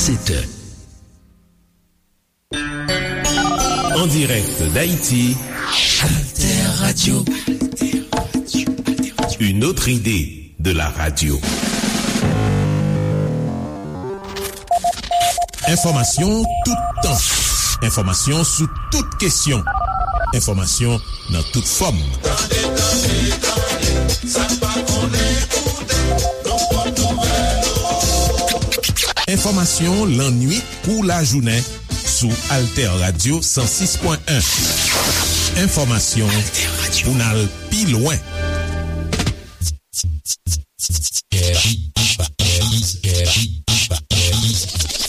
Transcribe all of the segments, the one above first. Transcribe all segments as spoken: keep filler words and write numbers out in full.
sept heures. En direct d'Haïti, Alter Radio. Une autre idée de la radio. Enfòmasyon toutan. Enfòmasyon sou tout kesyon. Enfòmasyon nan tout fòm. Tande, tande, tande, sa n pa konnen koute, nou pot nouvèl. Enfòmasyon lannuit kou lajounen sou Alter Radio san sis pwen en. Enfòmasyon pou n al pi lwen.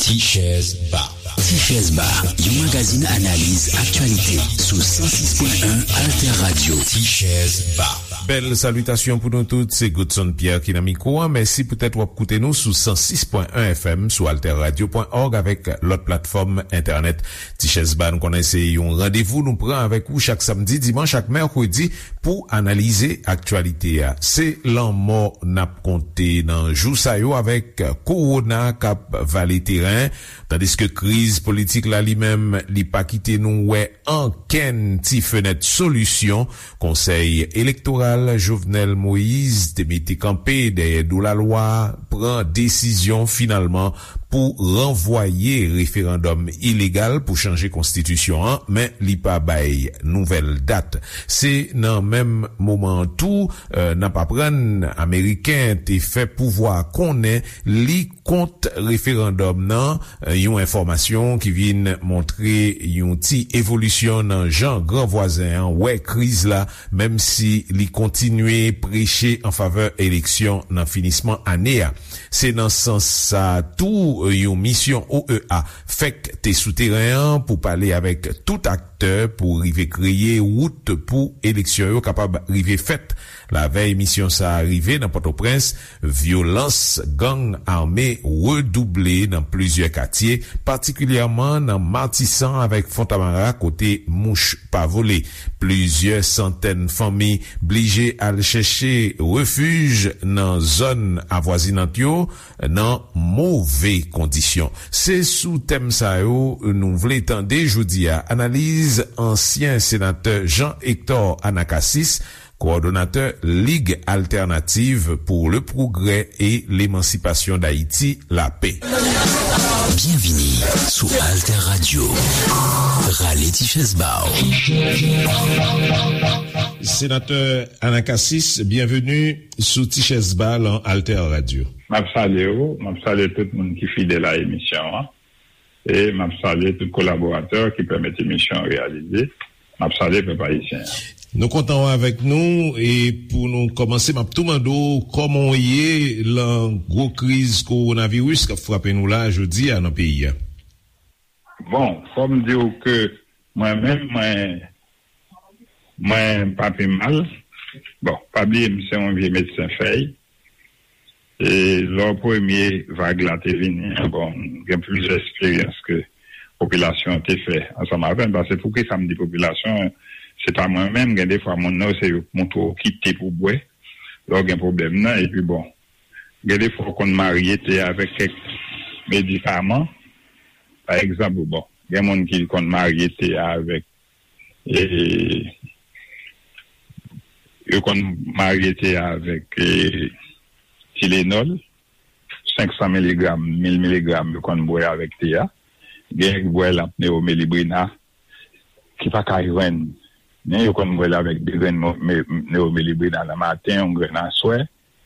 Tichèz Ba. Tichèz Ba, yon magazin analiz aktyalite sou san sis pwen en Alter Radio. Tichèz Ba. Bèl salitasyon pou nou tout, se Godson Pierre ki nan mikwo a. Mèsi poutèt w ap koute nou sou san sis pwen en F M, sou alterradio pwen org avèk lòt platfòm entènèt. Tichèz Ba, nou konnen se yon randevou nou pran avèk ou chak samdi, dimanch ak mèkredi pou analize aktyalite a. Se lanmò n ap konte nan jou sa yo avèk kowona k ap vale teren, tandiske kriz politik la li menm, li pa kite nou wè ankenn ti fenèt solisyon. Konsèy elektoral Jovenel Moïse te mete kanpe dèyè do lalwa, pran desizyon finalman pou ranvwaye referandòm ilegal pou chanje konstitisyon an, men li pa bay nouvèl dat. Se nan menm moman an tou, eh, n ap aprann Ameriken te fè pouvwa konnen li kont referandòm nan, eh, yon enfòmasyon ki vin montre yon ti evolisyon nan jan gran vwazen an wè kriz la, menm si li kontinye preche an favè eleksyon nan finisman ane a. Se nan sans sa a tou, yon misyon O E A fèk te sou teren an pou pale avèk tout aktè pou rive kreye wout pou eleksyon yo kapab rive fèt. Lavèy misyon sa a rive nan Pòtoprens, vyolans gang ame redouble nan plizyè katye, patikilyèman nan Matisan avèk Fontamara kote mouch pa vole. Plizyè santèn fanmi blije al chèche refij nan zòn avwazinant yo nan move kondisyon. Se sou tèm sa yo nou vle tande jodi a analiz ansyen senatè Jean Hector Anacasis, kowòdonatè Lig Altènativ pou le Pwogrè e Lemansipasyon d Ayiti, lapè. Byenvini sou Alter Radio. Rale ti chèz ba w. Senatè Anacasis, byenveni sou Ti Chèz Ba lan Alter Radio. M ap salye w, m ap salye tout moun ki fidèl a emisyon an. E m ap salye tout kolaboratè ki pèmèt emisyon an reyalize. M ap salye pèp ayisyen an. Nou kontan w avèk nou, e pou nou kòmanse, m ap tou mande w kòman w ye lan gwo kriz kowonaviris k ap frape nou la jodi a nan peyi a. Bon, fò m di w ke mwen menm, mwen, mwen pa pi mal. Bon, pa bliye m se yon vye medsen fèy. E lò premye vag la te vini an, bon, m gen plizyè eksperyans ke popilasyon an te fè ansanm avè m. Paske poukisa m di popilasyon an, se pa mwen menm, gen defwa moun nan yo se yo k montre w kite pou bwè lè w gen pwoblèm nan. Epi bon, gen defwa w konn marye te avèk kèk medikaman. Pa egzanp, bon, gen moun ki konn marye te avèk e, yo konn marye te avèk e, Tylenol, senk san miligram, mil miligram, yo konn bwè avèk te a. Gen ki bwè l ap Neomelibrina, ki pa ka jwenn. Men yo konn bwè l avèk de grenn mo- me- Neomelibrina nan maten, yon grenn aswè.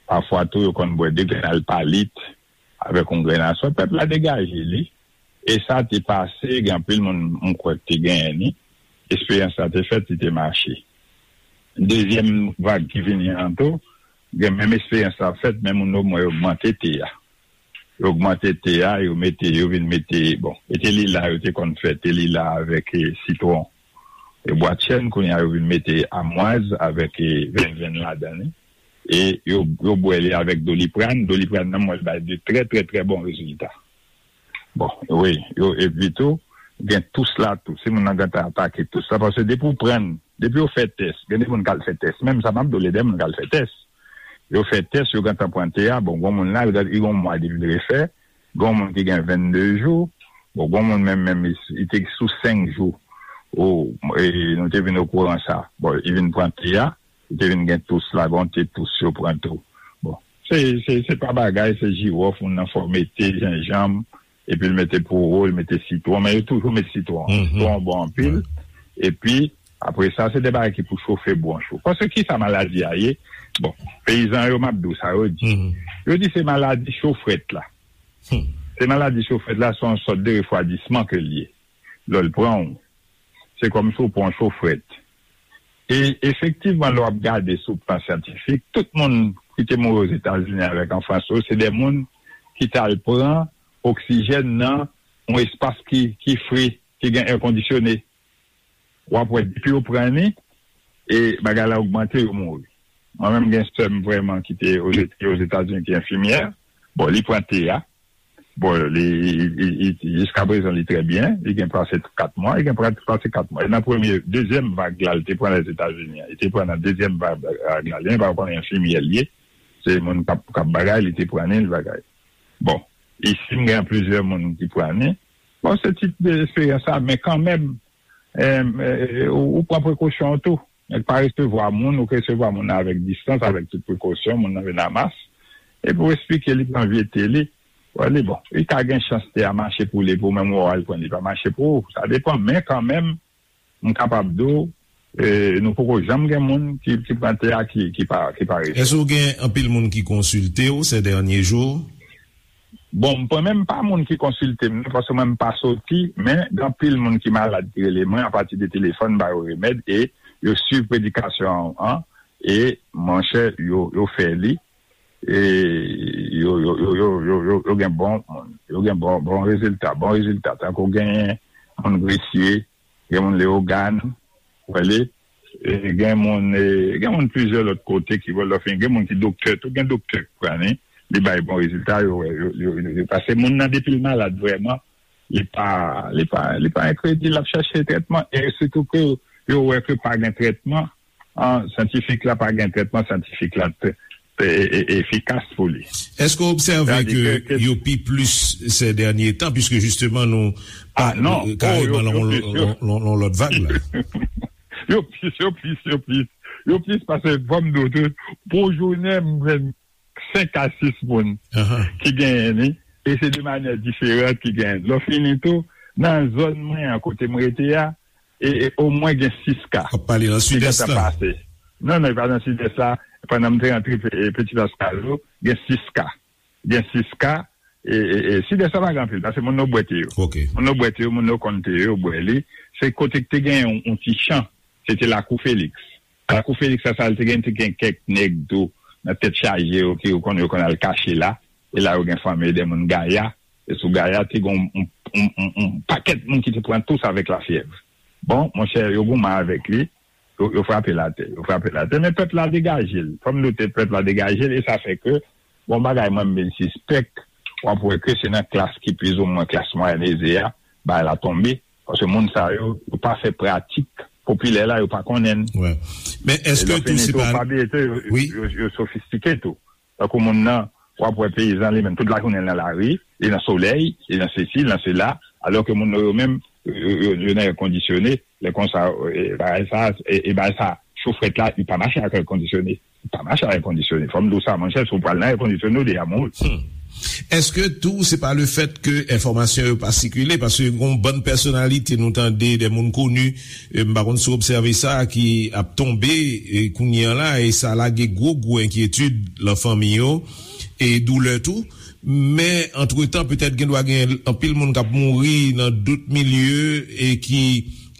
Pafwa tou, yo konn bwè de grenn Alpalit avèk yon grenn aswè. Pèp la degaje li. E sa te pase, gen anpil moun m kwè ki te genyen li. Eksperyans la te fèt, li te mache. Dezyèm vag ki vini an tou, gen menm eksperyans la fèt, men moun yo mwen yo ogmante te a. Yo ogmante te a, yo mete, yo vin mete, bon, e te lila, yo te konn fè te lila avèk e, sitwon e bwa chèn, kounye a yo vin mete amwaz avèk e, venvenn ladan li. E yo, yo bwè li avèk Doliprane. Doliprane nan, mwen, l bay de trè, trè, trè bon rezilta. Bon, wi, yo, epi tou, gen tous la tou. Si moun nan gentan atake tous la, paske depi w pran, depi yo fè tès, gen de moun k al fè tès. Menm sa, m ap di w, gen de moun k al fè tès. Yo fè tès, yo gentan pran te a, bon, gon moun la, li gen yon mwa depi l refè, Gen yon moun ki gen vennde jou, bon, gen yon moun menm, menm, li, li te sou senk jou. O, e, nou te vin okouran sa. Bon, li vin pran te a, li te vin gen tous la, gen yon te tous yo pran tou. Bon, se, se, se pa bagay, se jiwòf, moun nan fè w mete jenjanm, epi l mete poro, l mete sitwon, men yo toujou met sitwon. Sitwon bon anpil. Epi, apre sa, se de bagay ki pou chofe bwonch ou. Paske ki sa maladi a ye? Bon, peyizan yo, m ap di w sa yo di. Yo di se maladi cho frèt la. Se maladi cho frèt la, se yon sòt de refwadisman ke l ye. Lè l pran w, se kòmsi w pran yon cho frèt. E efektivman, lè w ap gade sou plan syantifik, tout moun ki te mouri Ozetazini avèk an Frans yo, se de moun ki t al pran oksijèn nan yon espas ki, ki fre, ki gen è kondisyone. W ap wè, depi yo pran li, e bagay la ogmante, yo mouri. Mwen menm, gen sè m vrèman ki te Oze-, ki Ozetazini, ki enfimyè. Bon, li pran te a. Bon, li, li, li, li, jiska prezan, li trè byen. Li gen pase kat mwa, li gen pra-, pase kat mwa. E nan premye, dezyèm vag la, li te pran Lèzetazini an. Li te pran nan dezyèm vag, vag la. Li pa konnen enfimyè li ye. Se moun k ap, k ap bagay, li te pran li, li bagay. Bon, isi, m gen plizyè moun ki pran li. Bon, se tip de esperyans sa, men kanmenm, em, eh, ou, ou pran prekosyon w tou. Nèg pa resevwa moun, ou resevwa moun nan avèk distans, avèk tout prekosyon, moun nan vin a mas. Epi w eksplike li pran vye te li. Wè li bon. Li ka gen chans te a mache pou li, pou menm ou al pran li pa mache pou ou. Sa depann, men kanmenm, m kapab di w, eh, nou poko janm gen moun ki, ki pran te a ki, ki pa, ki pa resevwa. Èske w gen anpil moun ki konsilte w ces derniers jours? Bon, mwen menm pa moun ki konsilte m, non, paske mwen m pa soti, men gen anpil moun ki malad ki rele mwen apati de telefòn, m ba yo remèd, e yo swiv predikasyon an, e monchè, yo, yo fè li, e yo, yo, yo, yo, yo, yo, yo gen bon, yo gen bon, bon rezilta, bon rezilta, tankou genyen moun Gresye, gen moun Leyogàn, w wè li, e gen moun, e, gen moun plizyè lòt kote ki wè lè w fin, gen moun ki doktè tou, gen doktè ki pran li, li bay bon rezilta, yo wè, yo, yo, yo, yo, paske moun nan depi l malad vrèman, li pa, li pa, li pa enkredil, l ap chèche trètman, e sitou ke yo wè ke pa gen trètman, an, syantifik la pa gen trètman syantifik la te, te, e, e, efikas pou li. Èske w obsève Sa di ke ke, ke yo pi plis ces derniers temps, puisque justement nou Ah, pa non. Oh, yo, kareman yo lan plis, yo. Lan, lan, lan lòt vag la. Yo plis, yo plis, yo plis. Yo plis paske fò m di w tou, pou jounen, m jwenn senk a sis moun Ahan. ki genyen li, e se de manyè diferan ki genyen. Lè w fini tou, nan zòn mwen an, kote m rete a, e, e omwen gen sis ka W ap pale nan ki Sidès gentan la. pase. Non, non, e pa nan Sidès la. Pandan m te rantre Pe-, e, Petit Pascal, gen sis ka. Gen sis ka. E, e, e, Sidès la pa gen anpil, paske moun yo bwè te yo. Ok. Moun yo bwè te yo, moun yo konn te yo, yo bwè li. Se kote ki te gen yon, yon ti chan. Se te Lakou Feliks. Lakou Feliks la, sa, li te gen, te gen kèk nèg tou, nan tèt chaje yo, ki yo konn, yo konn al kache la. E la, yo gen fanmi de moun Gaya. E sou Gaya, te gen yon, yon, yon, yon, yon pakèt moun ki te pran tous avèk lafyèv. Bon, monchè, yo goumen avèk li, yo, yo frape l atè, yo frape l atè. Men pèp la degaje l. Fò m note pèp la degaje l, e sa fè ke, bon, bagay mwen, m vin sispèk, w ap wè ke se nan klas ki plizoumwen klas mwayèn eze a, bagay la tonbe. Paske moun sa yo, yo pa fè pratik popilè la, yo pa konnen l. Wè. Men E èske lè w tou fini se tou, pa pa bliye tou, yo, Wi. yo, yo sofistike tou. Tankou moun nan, w ap wè peyizan li menm, tout lajounen l nan lari, li nan solèy, li nan sesi, li nan sela, alò ke moun yo menm, yo, yo, yo nan è kondisyone, lè konsa, e, bagay sa, e, e bagay sa, cho frèt la, li pa mache ak è kondisyone. Li pa mache ak è kondisyone. Fò m di w sa, monchè, si w pral nan è kondisyone, ou deja mouri. Hmm. Èske tou se pa le fèt ke enfòmasyon yo pa sikile? Paske gon bann pèsonalite nou tande, de moun koni, e, m pa konn si w obsève sa, ki ap tonbe, e, kounye an la, e sa lage gwo, gwo enkyetid lan fanmi yo, e doulè tou. Men, antretan, petèt gen dwa gen anpil moun k ap mouri nan dòt milye e ki,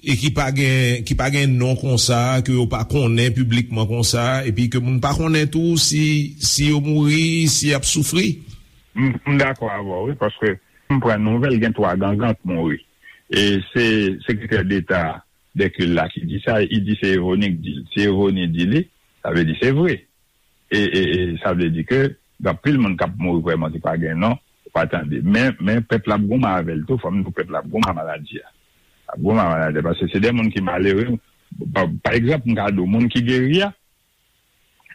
e ki pa gen, ki pa gen non konsa, ke yo pa konnen piblikman konsa, epi ke moun pa konnen tou si, si yo mouri, si y ap soufri. M, m dakò avè w, wi, paske m pran nouvèl, gen twa gangan k mouri. E se sekretè deta Dèkil la ki di sa, li di se Evoni k di l. Si Evoni di li, sa vle di se vre. E, e, e sa vle di ke gen anpil moun k ap mouri vrèman ki pa gen non, ou pa tande. Men, men pèp la ap goumen avè l tou, fò m di w pèp la ap goumen ak maladi a. Ap goumen ak maladi a, paske se de moun ki malere. Pa, pa egzanp, m ka di w, moun ki geri a,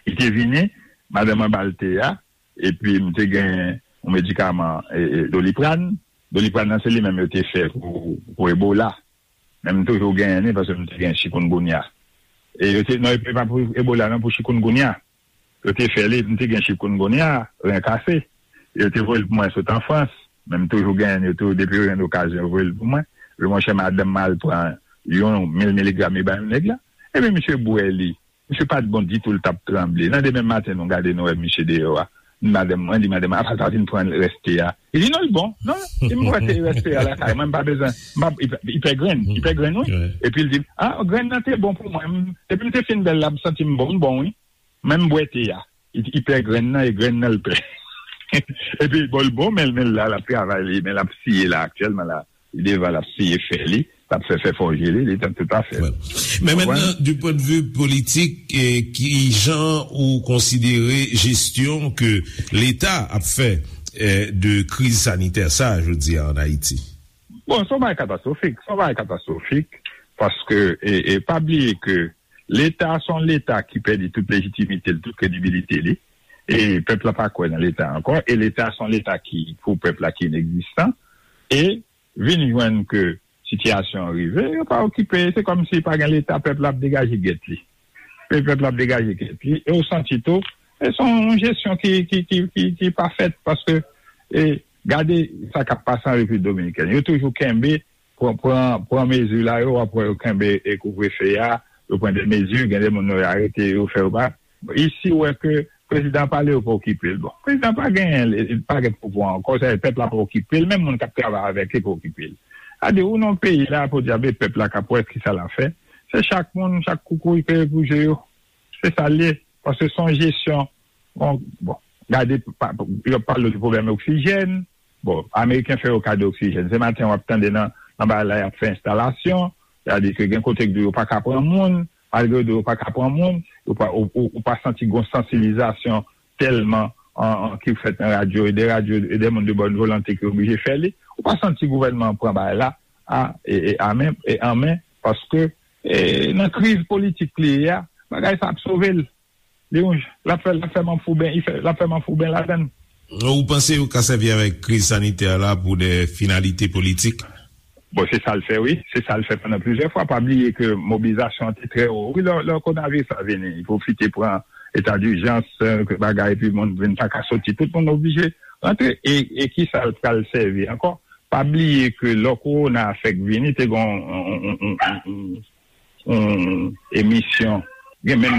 li te vini, madanm an ba l te a, epi m te gen yon medikaman, e, e, Doliprane. Doliprane nan, se li menm yo te fè pou, pou Ebola. Men m toujou genyen li, paske m te gen chikungunya. E yo te, non, e pa pou Ebola, non, pou chikungunya. Yo te fè li, m te gen chikungunya, ren kase. Yo te voye l pou mwen sot an Frans. Men m toujou genyen li tou, depi yo jwenn okazyon, yo voye l pou mwen. Yo, monchè, madanm mwen al pran yon mil miligram, li bay yon nèg la. Epi misye bwè li. Misye pa t bon ditou, l t ap tranble. Nan demen maten, nou gade, nou wè misye deyò a. Madanm mwen di, madanm mwen, apa l pa vin pran rès te a? Li di, non, l bon. Non, li di, m wè te rès te a lakay mwen, m pa bezwen. M pa, li pè, li pè grenn, li pè grenn, wi. Epi l di, a, grenn nan te bon pou mwen. M, depi m te fin bwè l la, m santi m bon, m bon, wi. Men m bwè te a. Li, li pè grenn nan, e grenn nan l pè. Epi, bon, l bon, men, men l la, l ap travay li, men l ap siye la, aktyèlman la. Li devan, l ap siye fè li, l ap fè, fè fòje li, li t ap tout afè. Wè. Men mentnan, du point de vue politik, e, ki jan ou konsidere jesyon ke Leta ap fè, e, de kriz sanitè sa, jodi a, an Ayiti? Bon, se yon bagay katastwofik, se yon bagay katastwofik, paske, e, e, pa bliye ke Leta, se yon Leta ki pèdi tout lejitimite l, tout kredibilite li, e pèp la pa kwè nan Leta ankò, e Leta, se yon Leta ki, pou pèp la, ki inegzistan, e vin jwenn ke sitiyasyon an rive, yo pa okipe, se kòmsi pa gen Leta, pèp la ap degaje gèt li. E pèp la ap degaje gèt li, e ou santi tou, e se yon jesyon ki, ki, ki, ki, ki pa fèt, paske, e, gade sa k ap pase an Repiblik Dominikèn. Yo toujou kenbe, pran, pran, pran mezi la, yo, w ap wè yo kenbe, e, kouvrefe a, yo pran de mezi, gen de moun yo arete, yo fè yo pa. Isi, ou wè ke prezidan pale, yo pa okipe l. Bon, prezidan pa genyen, li pa gen pouvwa ankò, sa pèp la pa okipe l, menm moun k ap travay avèk li pa okipe l. Sa di, ou nan peyi la, podyab, e pèp la k ap wè kisa l ap fè. Se chak moun, chak koukouy peye pou je yo. Se sa l ye. Paske se yon jesyon, bon, bon, gade, pa, yo ap pale de pwoblèm oksijèn. Bon, Ameriken fè yo kado oksijèn. Se maten w ap tande nan, nan bagay la, y ap fè enstalasyon. Sa di ke gen kote k di yo pa ka pran moun. Malgre yo di yo pa ka pran moun, ou pa, ou, ou, ou pa santi gon sansibilizasyon tèlman an, an, ki fèt nan radyo, e de radyo, e de moun de bòn volonte ki oblije fè li. Ou pa santi gouvènman an pran bagay la a, e, e, a men, e an men, paske, e, nan kriz politik li ye a, bagay sa ap sove l. Li yon, l ap fè, l ap fè manfouben, li fè, l ap fè manfouben ladan l. Ou panse yo ka sèvi avèk kriz sanitè la pou de finalite politik? Bon, se sa l fè, wi. Se sa l fè pandan plizyè fwa. Pa bliye ke mobilizasyon an te trè wo. Wi, lè, lè kowonaviris la vini, li pwofite pran eta dijans, eh, bagay, epi moun vin pa ka soti. Tout moun oblije rantre. E, e ki sa l pral sèvi ankò? Pa bliye ke lè kowona a fèk vini, te gen yon, yon, yon, yon, yon, yon emisyon. Gen menm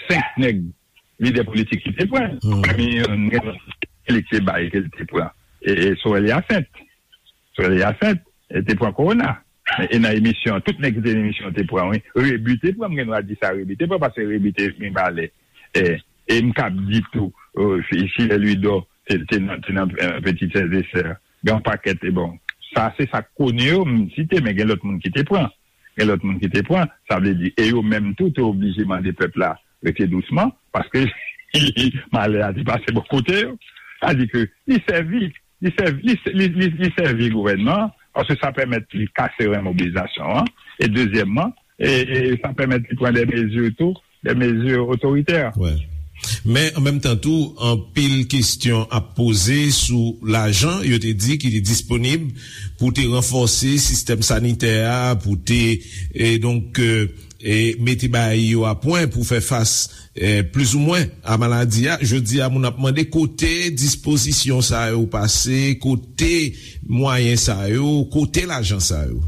senk nèg lidè politik ki te pran. Pami yo, gen lòt ki te bay ke l te pran. E, e Sorel Hyacinthe. Sorel Hyacinthe, e te pran kowona. E nan emisyon, tout nèg ki te nan emisyon te pran, wi. Rebu te pran, m gen dwa di sa, Rebu te pran, paske Rebu te vin pale. E, e m kab di tou, e, Fi-, Filè Lwidò te, te nan, te nan, e, Petit Frères et Sœurs. Gen yon pakèt, e bon, sa, se sa k koni yo, m site, men gen lòt moun ki te pran. Gen lòt moun ki te pran, sa vle di, e yo menm tou te oblije mande pèp la rete dousman, paske malè a te pase bò kote yo. Sa di ke li sèvi, li sèvi, li, li, li, li sèvi gouvènman an, paske sa pèmèt li kase ren mobilizasyon an, e dezyèmman, e, e sa pèmèt li pran de mezi tou, de mezi otoritè. Wè. Men, an menm tan tou, anpil kesyon ap poze sou lajan, yo te di ki te disponib pou te ranfòse sistèm sanitè a, pou te, e donk, e, e mete bagay yo a pwen pou fè fas, e, plizoumwen a maladi a. Jodi a, moun ap mande kote dispozisyon sa yo pase, kote mwayen sa yo, kote lajan sa yo.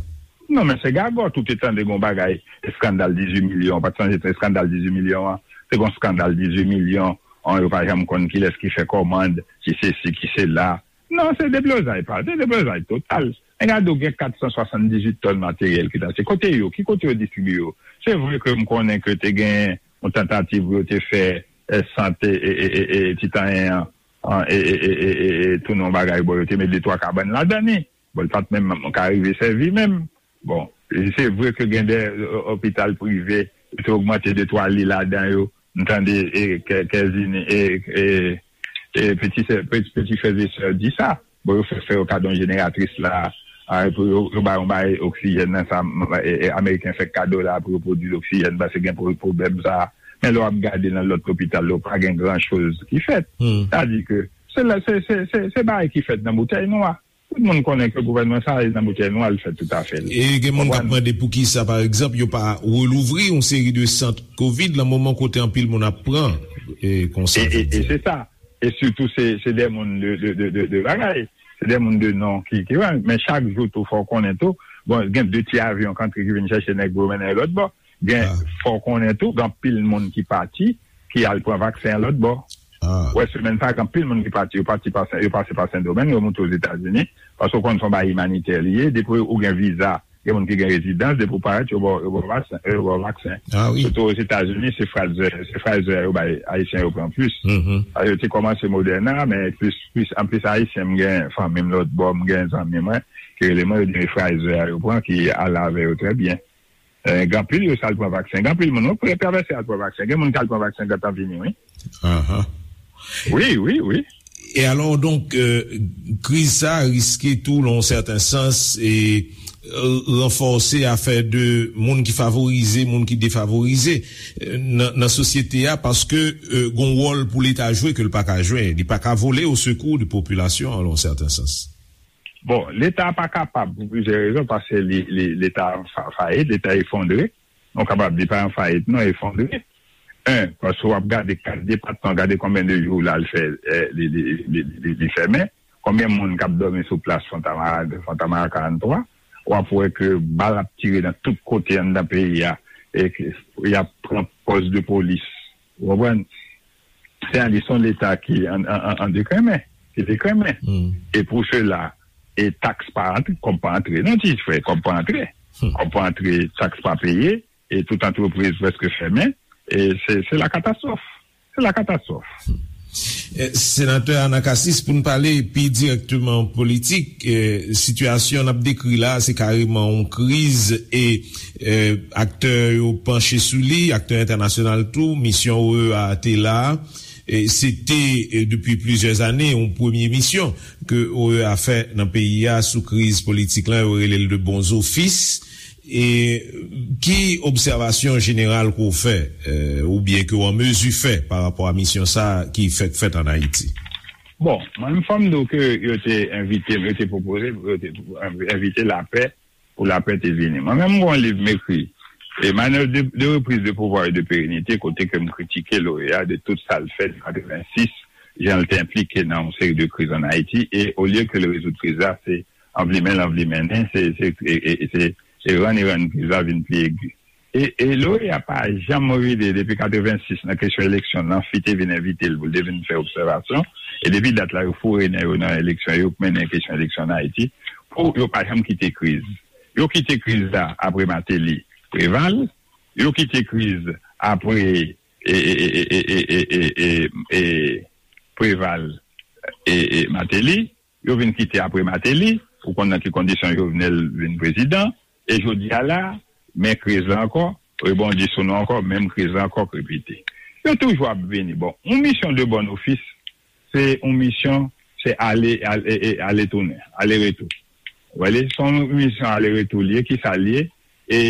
Non, men se gagòt, ou te tande gon bagay, eskandal dizuit milyon, ou pa t sonje eskandal dizuit milyon an? Se gon eskandal dizuit milyon, an, yo pa janm konn kilès ki fè kòmand, ki sesi, ki sela. Non, se deblozay pa, se deblozay total. Men gade, ou gen kat san swasanndizuit tòn materyèl ki t achte. Kote yo? Ki kote yo distribiye yo? Se vre ke m konnen ke te gen yon tantativ pou yo te fè, eh, sant, e, e, e, e, e, Titanyen an, an, e, e, e, e, e, e, tounen yon bagay, bon, yo te met de twa kabann ladan li. Bon, li pa t menm ka rive sèvi menm. Bon, se vre ke gen de, e, opital prive, yo te ogmante de twa li ladan yo. M tande, e, Kè-, Kèzini, e, e, e, Petit Sè-, Petit, Petit Frères et Sœurs di sa. Bon, yo fè, fè yo kado yon jeneratris la, a, pou yo, yo ba yon bay oksijèn nan sa, m, e, e, Ameriken fè kado la pou yo pwodui oksijèn, paske gen pwo-, pwoblèm sa. Men lè w ap gade nan lòt lopital yo, pa gen gran choz ki fèt. Sa di ke Se la, se, se, se, se bagay ki fèt nan boutèy nwa. Tout moun konnen ke gouvènman sa a nan boutèy nwa, li fèt toutafè. E gen moun k ap mande poukisa, pa egzanp, yo pa relouvri yon seri de sant kovid nan moman kote anpil moun ap pran e konsa, e, e, e se sa. E sitou, se, se de moun de, de, de, de, de bagay. Se de moun de non ki, ki, men chak jou tou, fò w konnen tou. Bon, gen de ti avyon k antre ki vin chèche nèg pou yo mennen yo lòt bò. Gen, fò w konnen tou, gen anpil moun ki pati, ki al pran vaksen an lòt bò. Ou wè, semèn sa a, gen anpil moun ki pati, yo pati pa Sen, yo pase pa Sendomeng, yo moute Ozetazini, paske w konn se yon bagay imanitè li ye, depi ou gen viza, gen moun ki gen rezidans, depi w parèt, yo ba w, yo ba w vaksen, yo ba w vaksen. Sitou Ozetazini, se Pfizer, se Pfizer yo bay Ayisyen yo pran plis. Yo te kòmanse Moderna, men plis, plis, anplis Ayisyen, m gen fanmi m lòt bò, m gen zanmi mwen, ki rele mwen, yo di m Pfizer yo pran, ki ale avè yo trè byen. Eh, gen anpil yo sa al pran vaksen. Gen anpil moun, wi, pou yo travèse al pran vaksen. Gen moun ki al pran vaksen gentan vini, wi. Wi, wi, wi. E alò, donk, euh, kriz sa a riske tou, nan yon sèten sans, e, euh, ranfòse afè de moun ki favorize, moun ki defavorize. Euh, nan, nan sosyete a, paske, euh, gon wòl pou Leta jwe ke l pa ka jwe. Li pa ka vole o sekou de popilasyon an, nan yon sèten sans. Bon, Leta pa kapab pou plizyè rezon, paske li, li, Leta fa-, fayit, Leta efondre. Nou kapab di pa an fayit, non, efondre. En, paske w ap gade kat depatman, gade konbyen de jou la l fè, eh, li, li, li, li, li fèmen. Konbyen moun k ap dòmi sou plas Fontamara, Fontamara karant twa? W ap wè ke bal ap tire nan tout kote anndan peyi a, e ke y ap pran pòs de polis. Ou konprann? Se yon, se yon Leta ki an, an, an, an dekrenmen, ki dekrenmen. E pou sela, e taks pa antre, kòb pa antre. Non, ti frè, kòb pa antre. Kòb pa antre, taks pa peye, e tout antrepriz prèske fèmen. E se, se la katastwòf. Se la katastwòf. Eh, Senatè Anacassis, pou n pale pi dirèkteman politik, eh, sitiyasyon n ap dekri la, se kareman yon kriz e, eh, aktè yo panche sou li, aktè entènasyonal tou, misyon O E A te la. E se te, eh, depi plizyè ane, yon premye misyon ke O E A fè nan peyi a sou kriz politik la, yo rele l de bon zofis. E ki obsèvasyon jeneral ke w fè, eh, oubyen ke w an mezi fè pa rapò a misyon sa a ki fèk fèt ann Ayiti? Bon, mwen menm fò m di w ke yo te envite m, yo te pwopoze, yo te envite lapè, pou lapè te vini. Mwen menm, m gen yon liv m ekri, e Manœuvre de, de reprise de pouvoir et de pérennité, kote ke m kritike l'O E A de tout sa l fè de katrevensis, jan l te enplike nan yon seri de kriz ann Ayiti, e olye ke l rezoud kriz la, se anvlimen l anvlimennen, se, se, e, e, e se, se rann e rann kriz la vin pi egi. E, e l'O E A pa janm rele depi katrevensis nan kesyon eleksyon, Nanfi te vin envite l pou l te vin fè obsèvasyon. E depi dat la, yo foure nen yo nan eleksyon, yo mennen kesyon eleksyon ann Ayiti, pou yo pa janm kite kriz. Yo kite kriz la apre Martelly, Préval, yo kite kriz apre, e, e, Préval, e, e, Martelly, yo vin kite apre Martelly, ou konn nan ki kondisyon Jovenel vin prezidan, e jodi a la, men kriz la ankò, rebondi sou nou ankò, menm kriz la ankò k repete. Yo toujou ap vini. Bon, yon misyon de bon ofis, se yon misyon, se ale, ale, e, e, ale tounen, ale retou. Ou wè li, se yon misyon ale retou li ye, ki sa li ye? E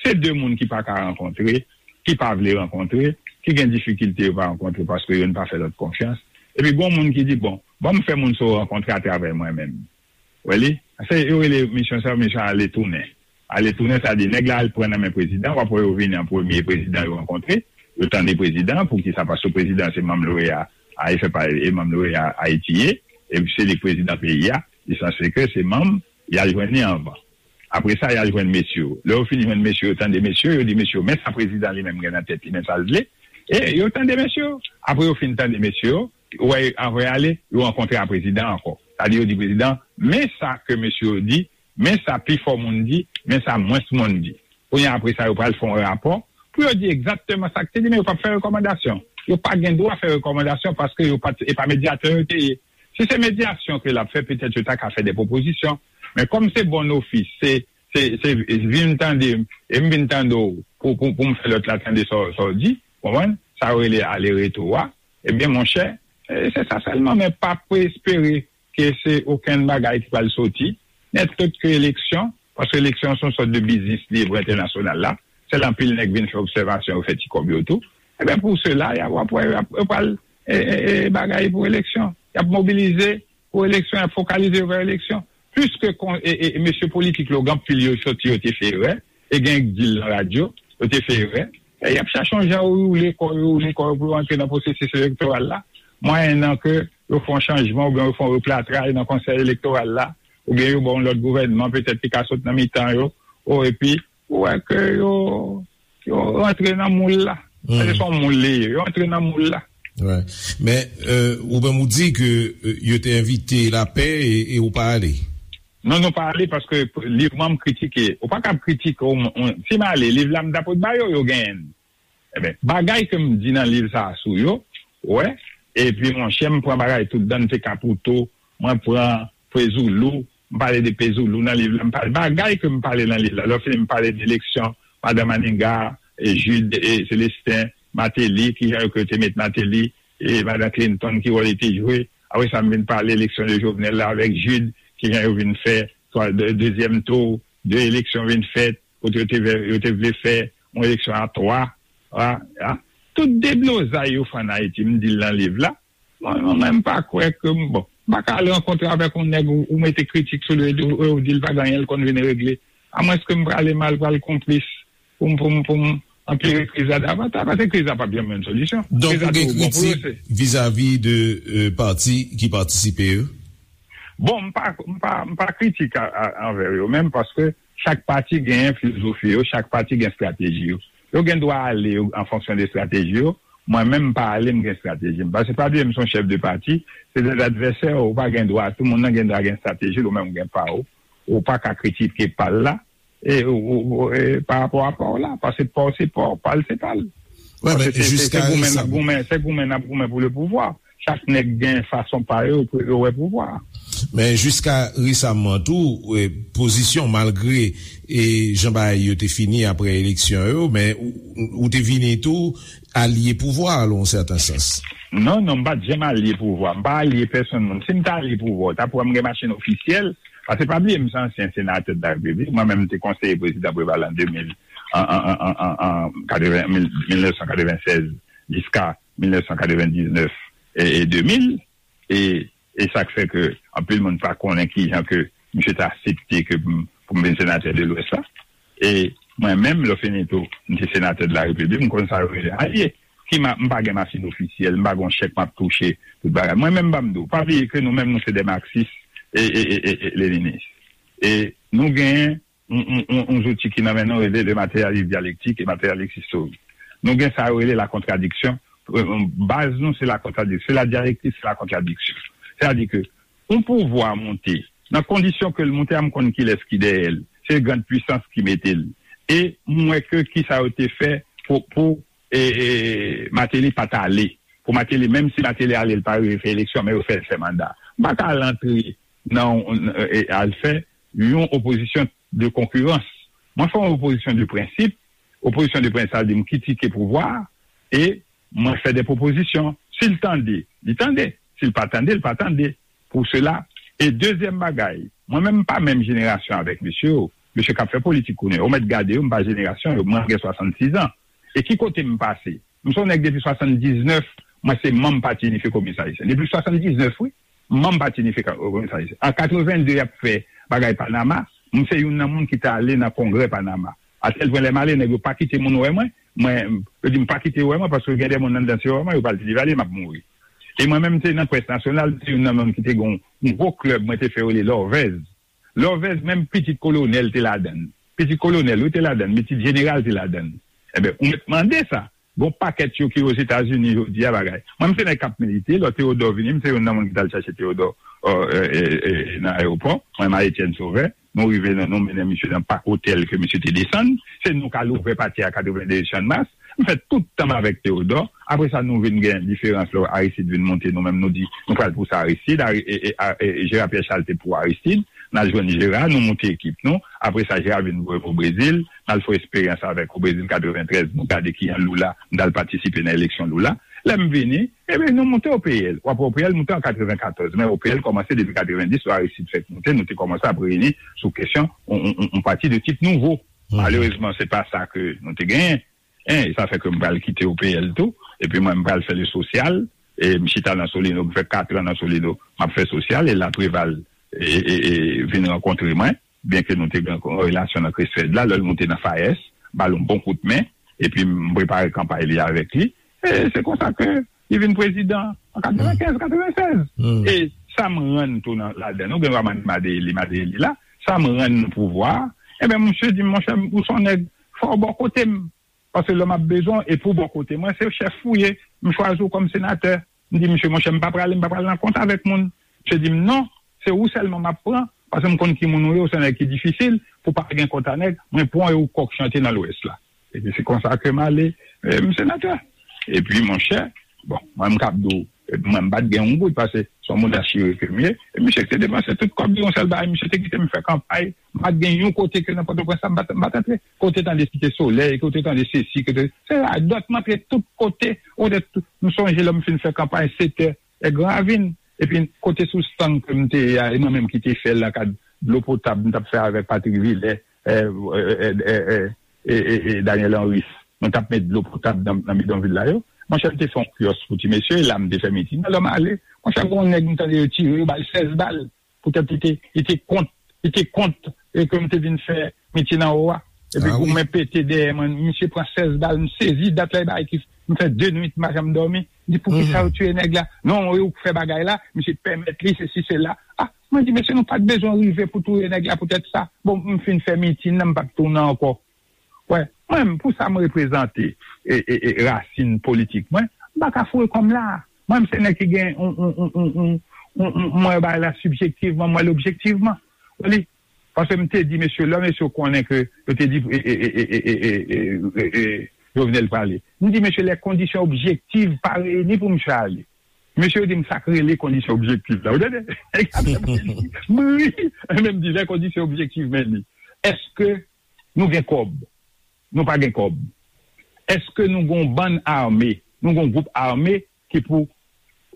se de moun ki pa ka rankontre, ki pa vle rankontre, ki gen difikilte yo pa rankontre paske youn pa fè lòt konfyans. Epi gon moun ki di, bon, ban m fè moun sa yo rankontre atravè mwen menm. Ou wè li? Se, yo rele misyon sa, misyon ale tounen. Ale tounen, sa di, nèg la al pran nan men prezidan, w ap wè yo vini an premye, prezidan yo rankontre, yo tande prezidan, poukisa? Paske prezidan se manm l'O E A, a, e fè pa, e manm l'O E A Ayiti ye, e se li k prezidan peyi a, li sanse ke se manm, y al jwenn li anvan. Apre sa, y al jwenn mesye yo. Lè yo fin jwenn mesye yo, tande mesye yo, yo di mesye yo, men sa prezidan li menm gen nan tèt li, men sa l vle. E yo tande mesye yo. Apre yo fin tande mesye yo, ou wè, anvan y ale, yo rankontre a prezidan ankò. Sa di, yo di prezidan, men sa ke mesye yo di, men sa pifò moun di, men sa mwens moun di. Kounye a, apre sa, yo pral fè yon rapò pou yo di egzakteman sa k te di, men yo p ap fè rekòmandasyon. Yo pa gen dwa fè rekòmandasyon paske yo pa t, e pa medyatè yo te ye. Si se medyasyon ke l ap fè, petèt yo ta ka fè de pwopozisyon. Men kòm se bon ofis, se, se, se vin tande m, e m vin tande w pou, pou, pou m fè lòt la tande sa w, sa w di, konprann? Sa yo rele ale retou a. Ebyen, monchè, e, se sa sèlman, men pa espere ke se okenn bagay ki pral soti, nèt lòt ke eleksyon, paske eleksyon se yon sòt de biznis li ye pou entènasyonal la. Sèl anpil nèg vin fè obsèvasyon, yo fè ti kòb yo tou. Ebyen, pou sela, y a, w ap wè, y ap, yo pral, e, e, e, bagay pou eleksyon. Y ap mobilize pou eleksyon, y ap fokalize yo vè eleksyon. Piske kon, e, e, e mesye politik yo, gen anpil yo soti, yo te fè erè, e gen k di l nan radyo, yo te fè erè. E y ap chache yon jan yo woule kò yo, woule kò yo pou yo antre nan pwosesis elektoral la. Mwayennan ke yo fè yon chanjman oubyen yo fè yon replantray nan konsèy elektoral la, oubyen yo ba yon lòt gouvènman petèt ki ka sot nan mitan yo, o, epi ou wè ke yo, yo rantre nan moul la. Paske se yon moul li ye, yo rantre nan moul la. Men, ou menm ou di ke yo te envite lapè e ou pa ale. Non, nou pa ale paske liv mwen m kritike. Ou pa kab kritike, si m ale, liv la m ta pot ba yo, yo genyen l. Ebyen, bagay ke m di nan liv sa a sou yo, ou wè, epi monchè, m pran bagay tout dan, m te Kapouto, mwen pran Pezoulou, m pale de Pezoulou nan liv la, m pale bagay ke m pale nan liv la. Lè w fini, m pale de eleksyon, madan Maniga, e Jude, e Célestin, Martelly, kijan yo ke yo te met Martelly, e madan Clinton, ki wòl li te jwe. Apre sa, m vin pale eleksyon de Jovenel la avèk Jude, kijan yo vin fè twa, de, dezyèm tou, de eleksyon vin fèt, kote yo te vle, yo te vle fè yon eleksyon a twa, a, a. Tout deblozay yo fè ann Ayiti, m di l nan liv la. Mwen, mwen, mwen, m pa kwè ke m, bon, m pa ka al rankontre avèk yon nèg ou, ou mete kritik sou li, ou, ou di l pa gen anyen l konn vin regle. Amwenske m prale mal, pral konplis pou m, pou m, pou m anpire kriz la davantaj, paske kriz la p ap janm jwenn solisyon. Donk, ou gen kritik vizavi de pati ki patisipe yo? Bon, m pa, m pa, m pa kritik anvè yo menm, paske chak pati gen filozofi yo, chak pati gen estrateji yo. Yo gen dwa ale an fonksyon de estrateji yo. Mwen menm, m pa ale, m gen estrateji m. Paske pa bliye, m se yon chèf de pati, se de advèsè, ou pa gen dwa, tout moun nan gen dwa gen estrateji l, ou menm ou gen pa w. Ou pa ka kritike pa l la, e, ou, ou, e, pa rapò a pa w la, paske pa w se pa w, pa l se pa l. Paske se, se, se goumen n ap goumen, se goumen n ap goumen pou le pouvwa. Chak nèg gen fason pa yo pou yo wè pouvwa. Men jiska resaman tou, pozisyon, malgre e jan bagay yo te fini apre eleksyon yo, men ou, ou te vini tou alye pouvwa a, nan yon sèten sans. Non, non, m pa t janm alye pouvwa. M pa alye pèsonn moun. Si m ta alye pouvwa, w ta pou wè m gen machin ofisyèl. Paske pa bliye, m se ansyen senatè de la Repiblik. Mwen menm, m te konseye prezidan Preval an de mil, an, an, an, an, an, an katreven, mil, mil nèf san katreven sèz jiska mil nèf san katreven diznèf e, e de mil. E, e sa k fè ke anpil moun pa konnen kijan ke misye te aksepte ke m, pou m vin senatè de Lwès la. E mwen menm, lè w fini tou, m te senatè de la Repiblik, m konn sa yo rele alye. Ki ma, m pa gen machin ofisyèl, m pa gen yon chèk m ap touche, tout bagay. Mwen menm, ban m di w, pa bliye ke nou menm, nou se de maksis e, e, e, e, e leninis. E nou genyen yon, yon, yon, yon zouti ki nan men nou rele le matérialisme dialectique et matérialisme historique. Nou gen sa yo rele la contradiction. Baz nou se la contradiction, c'est la dialectique, c'est la contradiction. Sètadi ke yon pouvwa monte, nan kondisyon ke l monte a, m konn kilès ki dèyè l. Se grande puissance ki mete l. E m wè ke kisa yo te fè pou, pou e, e, Martelly pa t ale. Pou Martelly, menm si Martelly ale, l pa rive fè eleksyon, men yo fè l fè manda. M pa ka al antre nan, e, al fè yon opozisyon de konkirans. Mwen fè yon opozisyon de prensip. Opozisyon de prensip, sa vle di m kritike pouvwa a e mwen fè de pwopozisyon. Si l tande, li tande. Si l pa tande, li pa tande. Pou sela. E dezyèm bagay, mwen menm m pa menm jenerasyon avèk mesye yo. Mesye k ap fè politik kounye a, ou mèt gade yo, m pa jenerasyon yo, mwen gen swasannsis an. E ki kote m pase? M se yon nèg depi swasanndiznèf, mwen se manm Pati Inifye Kominis Ayisyen. Depi swasanndiznèf, wi, m manm Pati Inifye Kominis Ayisyen. An katreven de, y ap fè bagay Panama, m se youn nan moun ki t ale nan kongrè Panama. Atèl pwen lè m ale, nèg yo pa kite moun wè mwen. Mwen, yo di m pa kite yo wè mwen, paske gen de moun anndan, si yo wè mwen, yo pral di li vale, m ap mouri. E mwen menm, m te nan près nasyonal, m te youn nan moun ki te gen yon gwo klèb, mwen te fè yo rele Lòvèz. Lòvèz, menm pitit kolonèl te ladann. Pitit kolonèl, wi, te ladann, pitit jeneral te ladann. Ebyen, ou mèt mande sa. Gon pakèt yo ki Ozetazini jodi a bagay. Mwen, m se nèg k ap milite, lò Teyodò vini, m se youn nan moun ki t al chache Teyodò nan ayewopò. Mwen, Marie Etienne Sauveur, nou rive nan, nou mennen misye nan pak otèl ke misye te desann. Se nou k al ouvè pati a katreven de Chanmas. M fè tout tan m avèk Teyodò. Apre sa, nou vin gen diferans lè Aristide vin monte, nou menm nou di, nou pral pouse Aristide. Jera Pyè Chal te pou Aristide. N al jwenn Jera, nou moute ekip nou. Apre sa, Jera vin voye m o Brezil. N al fè eksperyans avèk o Brezil katreventrèz, nou gade kijan Lula, m t al patisipe nan eleksyon Lula. Lè m vini, ebyen, nou moute O P L. W ap wè O P L moute an katrevenkatòz, men O P L kòmanse depi katrevendis, lè Aristide fèk moute, nou te kòmanse ap reyini sou kesyon yon, yon, yon, yon pati de tip nouvo. Malerezman, se pa sa ke nou te genyen. En, e sa fè ke m pral kite O P L tou, epi mwen, m pral fè le sosyal, e m chita nan Solino, m fè katran nan Solino, m ap fè sosyal, e la Preval e, e, e vin rankontre mwen, byenke nou te gen yon relasyon nan Crestfed la, lè l moute nan FAES, ba l yon bon kout men, epi m prepare kanpay li avèk li. E se konsa ke li vin prezidan an katrevenkenz, katrevennsèz. E sa m rann tou nan, ladan. Nou gen dwa mande Madeyeli, Madeyeli la. Sa m rann nan pouvwa a. Ebyen, misye di m, monchè, ou se yon nèg, fò w bò kote m. Paske lè m ap bezwen w, e pou bò kote mwen, se chèf ou ye. M chwazi w kòm senatè. M di, misye, monchè, m pa prale, m pa pral nan kont avèk moun. Misye di m, non, se ou sèlman m ap pran, paske m konn ki moun ou ye, ou se yon nèg ki difisil, pou pa gen kont a nèg, mwen pran w e ou kòk chante nan Lwès la. Epi se konsa ke m ale, e, m senatè. Epi, monchè, bon, mwen m kab di w, e, mwen m pa t gen yon goud, paske se yon moun achire ke m ye. E misye te depanse tout kòb li, yon sèl bagay, misye te kite m fè kanpay. M pa t gen yon kote ke nan Pòtoprens la, m pa t, m pa t antre. Kote tande Site Solèy, kote tande sesi, kote, se radòt, m antre tout kote. Ou te, m sonje lè m fin fè kanpay, se tè e Gran Ravin. Epi kote sou stang ke m te ye a, e mwen menm ki te fè l nan kad dlo potab m t ap fè avèk Patrick Villers, e, e, e, e, e, e, e, e Daniel Henrys. Mwen t ap met dlo potab nan, nan bidonvil la yo. Monchè, m te fè yon kyòs pou ti mesye, e la m te fè mitin. Lè m ale, monchè, gen yon nèg m tande yo tire, yo ba l sèz bal. Poutèt li te, li te kont, li te kont, e ke m te vin fè mitin anwo a. Epi goumen pete dèyè mwen, misye pran sèz bal, m sezi, dat la e bagay ki, m fè de nwit, m pa janm dòmi. M di, poukisa yo tiye nèg la? Non, e ou k fè bagay la, misye pèmèt li, sesi, sela. A, mwen di, mesye, nou pa t bezwen rive pou touye nèg la poutèt sa. Bon, m fin fè mitin nan, m pa t tounen ankò. Wè, mwen menm, pou sa m reprezante, e, e, e, rasin politik mwen, m pa ka foure kò m la. Mwen menm, se nèg ki gen, on, on, on, on, on, on, on, m wè bagay la sibjektivman, m wè l objektivman. Ou li, paske m te di mesye, lè mesye konnen ke yo te di, e, e, Jovenel prale. M di, mesye, les conditions objectives pa reyini pou misye ale. Mesye yo di m sa k rele kondisyon objektif la. Ou tande? M ri. Men m di, les conditions objectives, men li. Èske nou gen kòb? Nou pa gen kòb. Èske nou gen yon bann ame? Nou gen yon gwoup ame ki pou,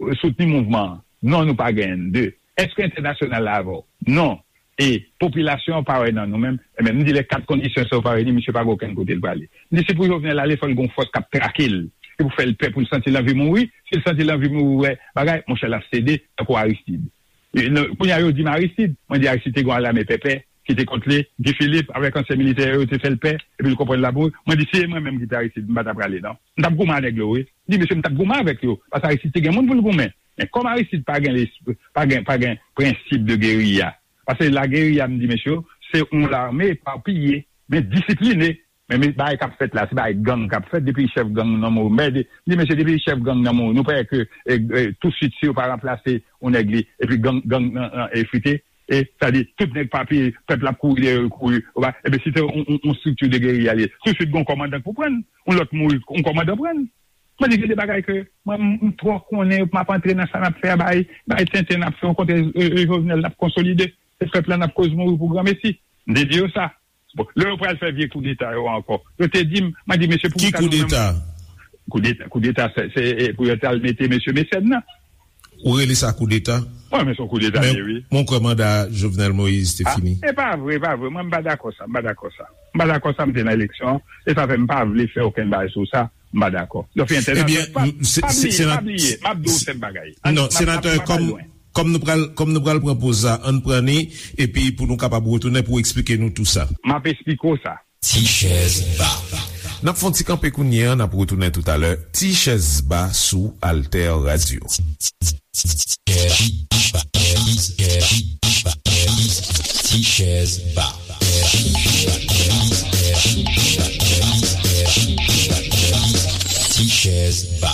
e, soutni mouvman an? Non, nou pa genyen. De, èske entènasyonal la avè w? Non. E popilasyon an pa wè nan nou menm. Ebyen, m di, lè kat kondisyon sa yo pa reyini, misye pa gen okenn kote l prale. M di, si pou Jovenel ale, fò l gen yon fòs k ap trake l. Se pou fè l pè, pou l santi l anvi mouri. Si l santi l anvi mouri, wè bagay, monchè, l ap sede, tankou Aristide. E, non, kounye a, yo di m Aristide. Mwen di, Aristide te gen yon lame pèpè ki te kont li. Guy Philippe, avèk ansyen militè yo, te fè l pè. Epi l konprann l ap mouri. Mwen di, si se mwen menm ki te Aristide, m pa t ap prale, non. M t ap goumen a nèg yo, wi. M di, mesye, m t ap goumen avèk yo. Paske Aristide te gen moun pou l goumen. Men kòm Aristide pa gen lesp-, pa gen, pa gen prensip de geriya, paske lageriya, m di, mesye, se yon lame epapiye, men disipline. Men, men bagay k ap fèt la, se bagay gang k ap fèt, depi chèf gang nan mouri. M di, mesye, depi chèf gang nan mouri, nou pa wè ke, e, e, tousuit, si yo pa ranplase yon nèg li, epi gang, gang nan, nan efrite, e, sa di, tout nèg pa peye, pèp la ap kouri dèyè yo, kouri, ou pa, ebyen, si te yon, yon, yon estrikti de geriya li ye, tousuit, gen yon kòmandan k pou pran l, yon lòt mouri, yon kòmandan pran l. Mwen di, gen de bagay ke mwen, m, m twò konnen yo pou m ap antre nan sa n ap fè a, bay, bay tenten n ap fè, yon kote, e, e, Jovenel n ap konsolide, e pèp la n ap koz mouri pou granmesi. M te di yo sa. Bon, lè yo pral fè vye koudeta yo ankò, yo te di m, mwen di, mesye, pou ki koudeta? Koudeta, koudeta, se, se, e, pou yo t al mete mesye Mecène nan. Ou rele sa koudeta? Mwen, men se yon koudeta li ye, wi. Men mwen kwè manda Jovenel Moïse te fini. E pa vre, e pa vre. Mwen, m pa dakò sa, m pa dakò sa. M pa dakò sa, m te nan eleksyon, e sa fè m pa vle fè okenn bagay sou sa, m pa dakò. Donk, entènasyonal, pa, pa bliye, pa bliye, m ap di w sèm bagay. Non, senatè, kòm, kòm nou pral, kòm nou pral pran poz la, ann pran ni, epi pou nou kapab retounen pou eksplike nou tou sa. M ap eksplike w sa. Ti chèz ba. N ap fè yon ti kanpe kounye a, n ap retounen toutalè. Ti chèz ba sou Alter Radio. Ti chèz ba. Ti chèz ba.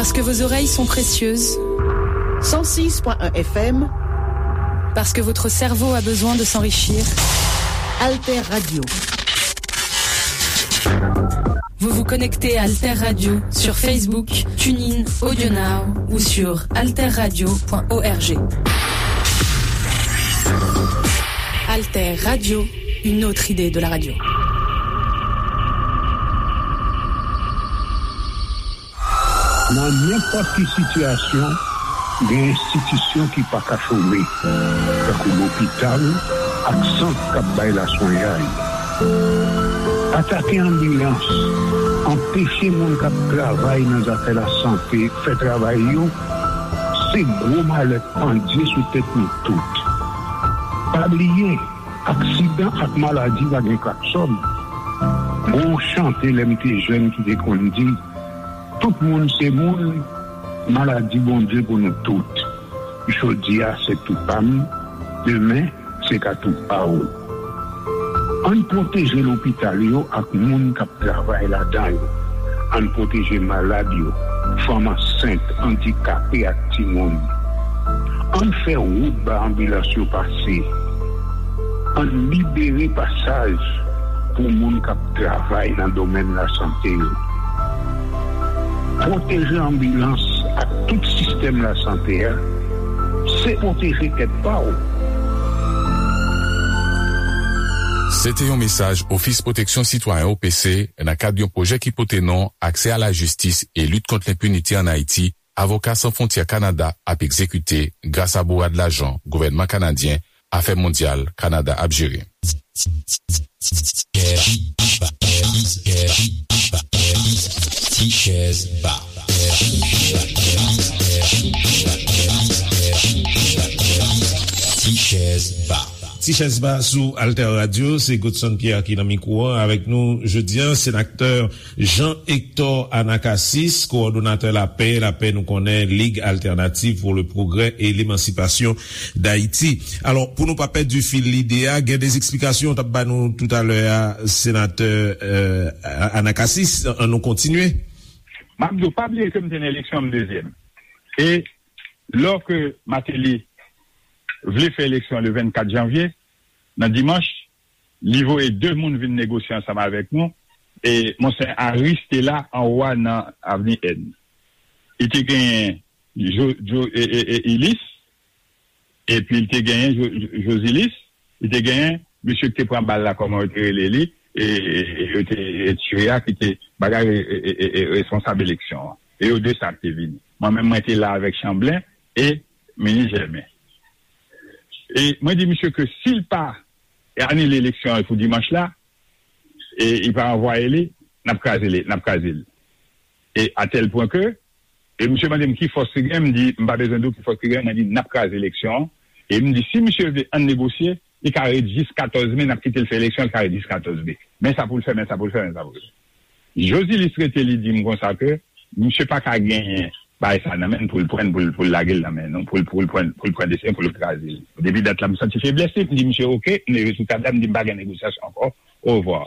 Parce que vos oreilles sont précieuses. Cent six point un F M. Parce que votre cerveau a besoin de s'enrichir. Alter Radio. Vous vous connectez à Alter Radio sur Facebook, TuneIn, AudioNow ou sur alterradio point org. Alter Radio, une autre idée de la radio. Nan nenpòt ki sitiyasyon, gen enstitisyon ki pa ka chome, tankou lopital ak sant k ap bay laswenyay. Atake anbilans, anpeche moun k ap travay nan zafè lasante fè travay yo, se gwo malè k pandye sou tèt nou tout. Pa bliye, aksidan ak maladi pa gen klaksòn. Gon chante lè m te jèn ki te konn di, Tout moun se moun, maladi Bondye pou nou tout. Jodi a se tou pa m, demen se ka tou pa w. Ann pwoteje lopital yo ak moun k ap travay ladan yo. Ann pwoteje malad yo, fanm ansent, andikape ak timoun. Ann fè wout ba anbilans yo pase. Ann libere pasaj pou moun k ap travay nan domèn lasante yo. Pwoteje anbilans ak tout sistèm lasante a, se pwoteje tèt pa w. Se te yon mesaj Ofis Pwoteksyon Sitwayen, O P C, nan kad yon pwojè ki pote non Aksè a la jistis e lit kont lenpinite ann Ayiti, Avoka San Fwontyè Kanada ap egzekite gras a bourad lajan gouvènman kanadyen Afè Mondyal Kanada ap jere. Ti chèz ba. Ti chèz ba. Ti chèz ba sou Alter Radio, se Godson Pierre ki nan mikwo an. Avèk nou jodi a, senatè Jean Hector Anacasis, kowòdonatè Lapè, Lapè nou konnen, Ligue Alternative pour le Progrès et l'Émancipation d'Haïti. Alò, pou nou pa pèdi fil lide a, gen de eksplikasyon w t ap ba nou toutalè a, senatè Anacasis, ann nou kontinye. M ap di w, pa bliye ke m te nan eleksyon, m dezyèm. E lò ke Martelly vle fè eleksyon le vennkat janvye, nan dimanch, li voye de moun vin negosye ansanm avèk nou. E Monseyè Harris te la anwo a nan Avni N. Li te genyen Ilis, epi li te genyen Josilis, li te genyen mesye ki te pran bal la, kòman yo te rele li, e yo te tire a, ki te bagay responsab eleksyon an. E yo de sa ki te vini. Mwen menm, mwen te la avèk Chanblen e Minis Jèmen. E mwen di misye ke si l pa anile eleksyon an pou dimanch la, e li pa ranvwaye li, n ap kraze li, n ap kraze l. E a tèl pwen ke, e misye mande m ki fòs ki gen, m di, m pa bezwen di w ki fòs ki gen, mwen di, n ap kraze eleksyon an. E m di, si misye vle ann negosye, li ka ret jis katòz me, n ap kite l fè eleksyon, li ka ret jis katòz me. Men sa pou l fè, men sa pou l fè, men sa pou l fè. Josilis rete, li di m konsa ke misye pa ka genyen bagay sa nan men l pou l pran l, pou l, pou l lage l nan men nou, pou l, pou l pran, pou l pran desizyon, pou l kraze l. Depi dat la, m santi feblès li, m di misye, oke, m leve sou tab la, m di m pa gen negosyasyon ankò, orevwa.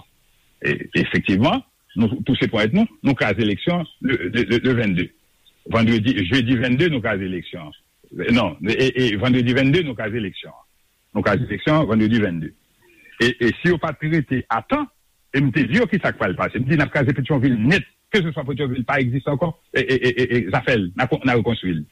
E, efektivman, nou touse ponyèt nou, nou kraze eleksyon le, le, le, le vennde. Vandredi, jedi vennde, nou kraze eleksyon. Non, e, e vandredi vennde, nou kraze eleksyon. Nou kraze eleksyon, vandredi vennde. E, e si yo pa t rete a tan, e m te di yo ki sa k pral pase. M di n ap kraze Petyonvil nèt, keseswa Petyonvil pa egziste ankò, e, e, e, e, e zafè l, n a, n a rekonstwi l.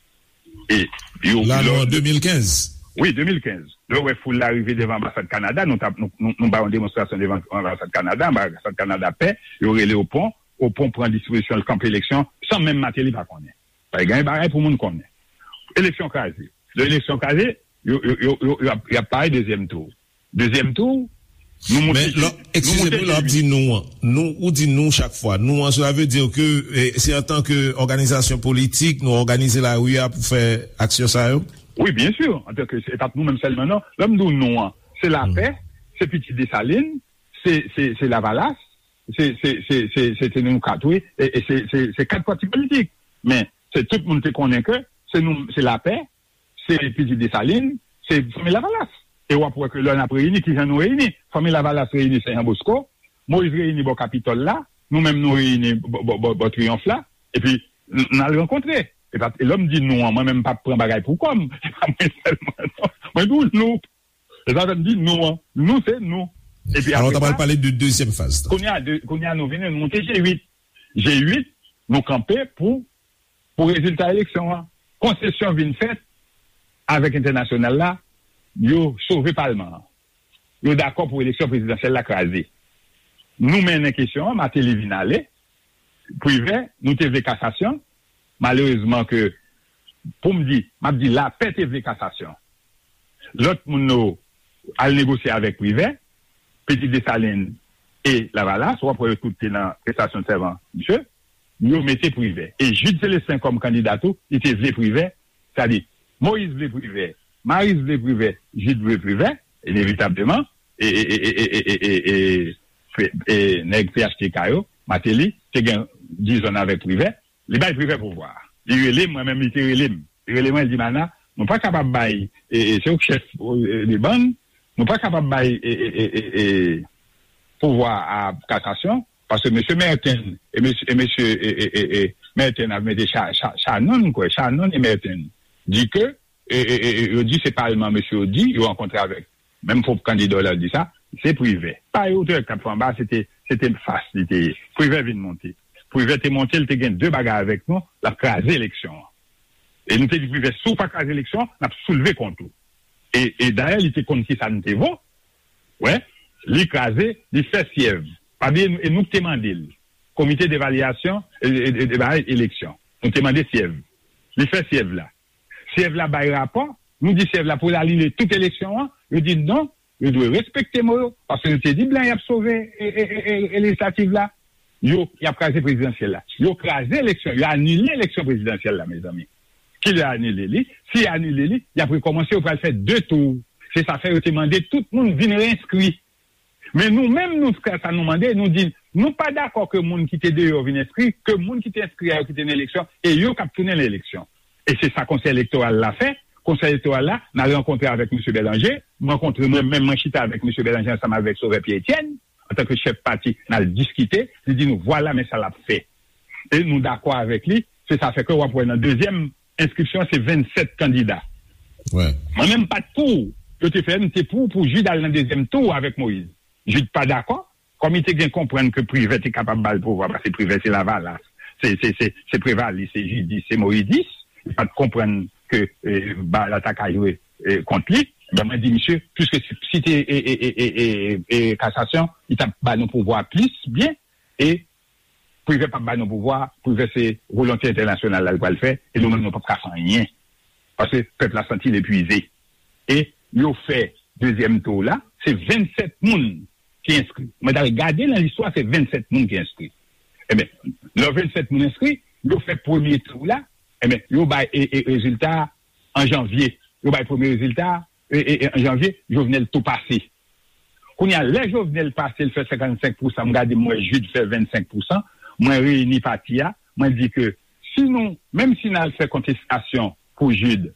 E yo, la, nou an de mil kenz. Wi, de mil kenz. Lè w wè foul la rive devan anbasad Kanada, nou t ap, nou, nou, nou bay yon demonstrasyon devan anbasad Kanada, anbasad Kanada pè, yo rele Opon, Opon pran dispozisyon, l kanpe eleksyon, san menm Martelly pa konnen. Pa gen bagay pou moun konnen. Eleksyon kraze. Lè eleksyon kraze, yo, yo, yo, yo, yo ap, y ap pare dezyèm tou. Dezyèm tou, nou moute. Men, lè, eskize m wi, lè w ap di nou an, nou, ou di nou chak fwa. Nou an, cela veut dire que, eh, se antanke òganizasyon politik, nou òganize lari a pou fè aksyon sa yo? Wi, byen si, antanke, se pa t nou menm sèlman, non. Lè m di w nou an, se Lapè, se Pitit Desalin, se, se, se Lavalas, se, se, se, se, se te nou kat, wi, e, e se, se, se kat pati politik. Men, se tout moun te konnen ke se nou, se Lapè, se Pitit Desalin, se Fanmi Lavalas. E w ap wè ke lè n ap reyini, kijan nou reyini? Fanmi Lavalas reyini Sen Jan Bosko, Moyiz reyini bò Kapitòl la, nou menm nou reyini bò, bò, bò, bò Triyonf la, epi n al rankontre. E pa, e lè m di nou an, mwen menm m p ap pran bagay pou kò m. Se pa mwen sèlman, non. Mwen di w nou. E sa fè m di nou an. Nou, se nou. Epi Alò, apre ta pral sa, pale de dezyèm faz la. Kounye a, de, kounye a nou vini, nou monte G uit. G uit, nou kanpe pou, pou rezilta eleksyon an. Konsesyon vin fèt avèk entènasyonal la, yo sove palman an. Yo dakò pou eleksyon prezidansyèl la kraze. Nou mennen kesyon an, Martelly vin ale, Privè, nou te vle kasasyon. Malerezman ke, pou m di, m ap di lapè te vle kasasyon. Lòt moun yo al negosye avèk Privè, Pitit Desalin e Lavalas, w ap wè yo tout te nan prestasyon sèman misye, yo mete Privè. E Jude Célestin kòm kandida tou, li te vle Privè, sètadi Moïse vle Privè, Marius vle Privè, Jude vle Privè, inevitableman, e, e, e, e, e, e, e, e, e, e, nèg P H T K yo, Martelly, te gen dizon avèk Privè, li bay Privè pouvwa a. Li rele m, mwen menm, li te rele m. Li rele mwen, li di, Mana, nou pa kapab bay, e, e, se ou k chèf, e, de bann, nou pa kapab bay, e, e, e, e, e, pouvwa a kasasyon, paske mesye Merten, e mesye, e mesye, e, e, e, e, Merten ap mete Cha-, Cha-, Shannon, kwè, Shannon e Merten, di ke, e, e, e, e, yo di se palman mesye yo di, yo rankontre avèk. Menm pwòp kandida w la di sa, se Privè. Pa yo te wè k t ap fè anba, se te, se te fas li te ye. Privè vin monte. Privè te monte, li te gen de bagay avèk nou, l ap kraze eleksyon an. E nou te di Privè, si w pa kraze eleksyon an, n ap soulve kont ou. E, e dayè, li te konn ki sa nou te vo. Wè, li kraze, li fè syèv. Pa bliye, e nou ki te mande l. Komite devalyasyon, e, e, e, e, eleksyon. Nou te mande syèv. Li fè syèv la. Syèv la bay rapò, nou di syèv la pou l anile tout eleksyon an, yo di non, yo dwe respekte mo yo, paske yo te di blan y ap sove e, e, e, e, e lejislatif la, yo, y ap kraze prezidansyèl la. Yo kraze eleksyon, yo anile eleksyon prezidansyèl la, mezanmi. Kilè yo anile li? Si yo anile li, y ap rekòmanse, yo pral fè de tou. Se sa fè yo te mande tout moun vin reenskri. Men nou menm, nou fè sa nou mande, nou di, nou pa dakò ke moun ki te deyò vin enskri, ke moun ki te enskri a yo ki te nan eleksyon, e yo k ap tounen nan eleksyon. E se sa Konsèy Elektoral la fè. Konsèy Elektoral la, n al rankontre avèk mesye Bèlanje, m rankontre mwen menm, mwen chita avèk mesye Bèlanje ansanm avèk Sovè Pyè Etyèn, antanke chèf pati, n al diskite, li di nou, vwala men sa l ap fè. E nou dakò avèk li, se sa fè ke w ap wè nan dezyèm enskripsyon se vennsèt kandida. Mwen menm m pa t pou yo te fè, m te pou, pou Jude al nan dezyèm tou avèk Moïse. Jude pa dakò, kòm li te gen konprann ke Privè te kapab ba l pouvwa, paske Privè se Lavalas, se, se, se, se Prevalis, se Jidis, se Moïdis, li pa t konprann ke, e, ba la ta ka jwe, e, kont li. Ben, mwen di, misye, piske si, si te, e, e, e, e, e, e, kasasyon, li t ap ba nou pouvwa plis byen, e Privè p ap ba nou pouvwa, Privè se volonte entènasyonal la l pral fè, e nou menm nou p ap ka fè anyen. Paske pèp la santi l epuize. E yo fè dezyèm tou la, se vennsèt moun ki enskri. Mwen t al gade nan listwa, se vennsèt moun ki enskri. Ebyen, lè vennsèt moun enskri, yo fè premye tou la, ebyen, yo bay e, e, rezilta a an janvye. Yo bay premye rezilta a, e, e, e, an janvye, Jovenel tou pase. Kounye a, lè Jovenel pase, l fè senkannsenk pousan, m gade, m wè Jude fè vennsenk pousan, mwen reyini pati a, mwen di ke si nou, menm si n al fè kontestasyon pou Jude,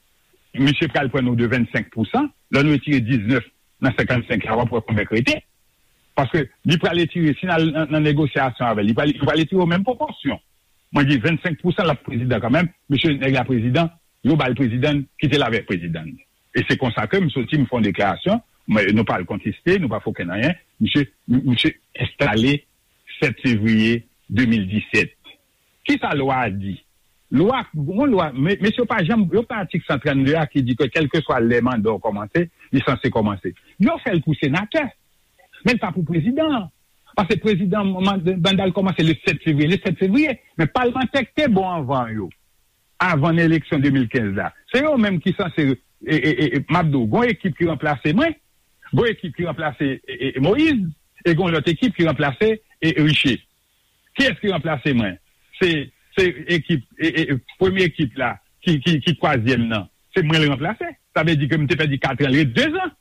misye pral pran nou de vennsenk pousan, lè nou retire diznèf nan senkannsenk la, w ap wè konbyen k rete. Paske li pral retire, si n al nan, nan negosyasyon avè l, li pral, li pral retire yo menm pwopòsyon. Mwen di vennsenk pousan l ap prezidan kanmenm, misye nèg la prezidan, yo ba l prezidan, kite l avèk prezidan. E se konsa ke m soti, m fè yon deklarasyon, mwen, nou pa al konteste, nou pa fè okenn anyen, misye, misye enstale sèt fevriye de mil disèt. Kisa lwa a di? Lwa, gon lwa, me-, mesye, yo pa janm, yo pa atik san trannde a ki di ke kèlkeswa lè manda w kòmanse, li sanse kòmanse. Yo fè l pou senatè, men l pa pou prezidan an. Paske prezidan, man-, manda l kòmanse le sèt fevriye, le sèt fevriye. Men palmantè k te bon anvan yo, avan nan eleksyon de mil kenz la, se yo menm ki sanse, e, e, e, e, m ap di w, gon ekip ki ranplase mwen, gon ekip ki ranplase, e, e, e, Moïse, e gon lòt ekip ki ranplase, e, e, Riché. Kiyès ki ranplase mwen? Se, se ekip, e, e, e, premye ekip la, ki, ki, ki twazyèm nan. Se mwen l ranplase. Sa vle di ke m te pèdi katran, l ret dezan.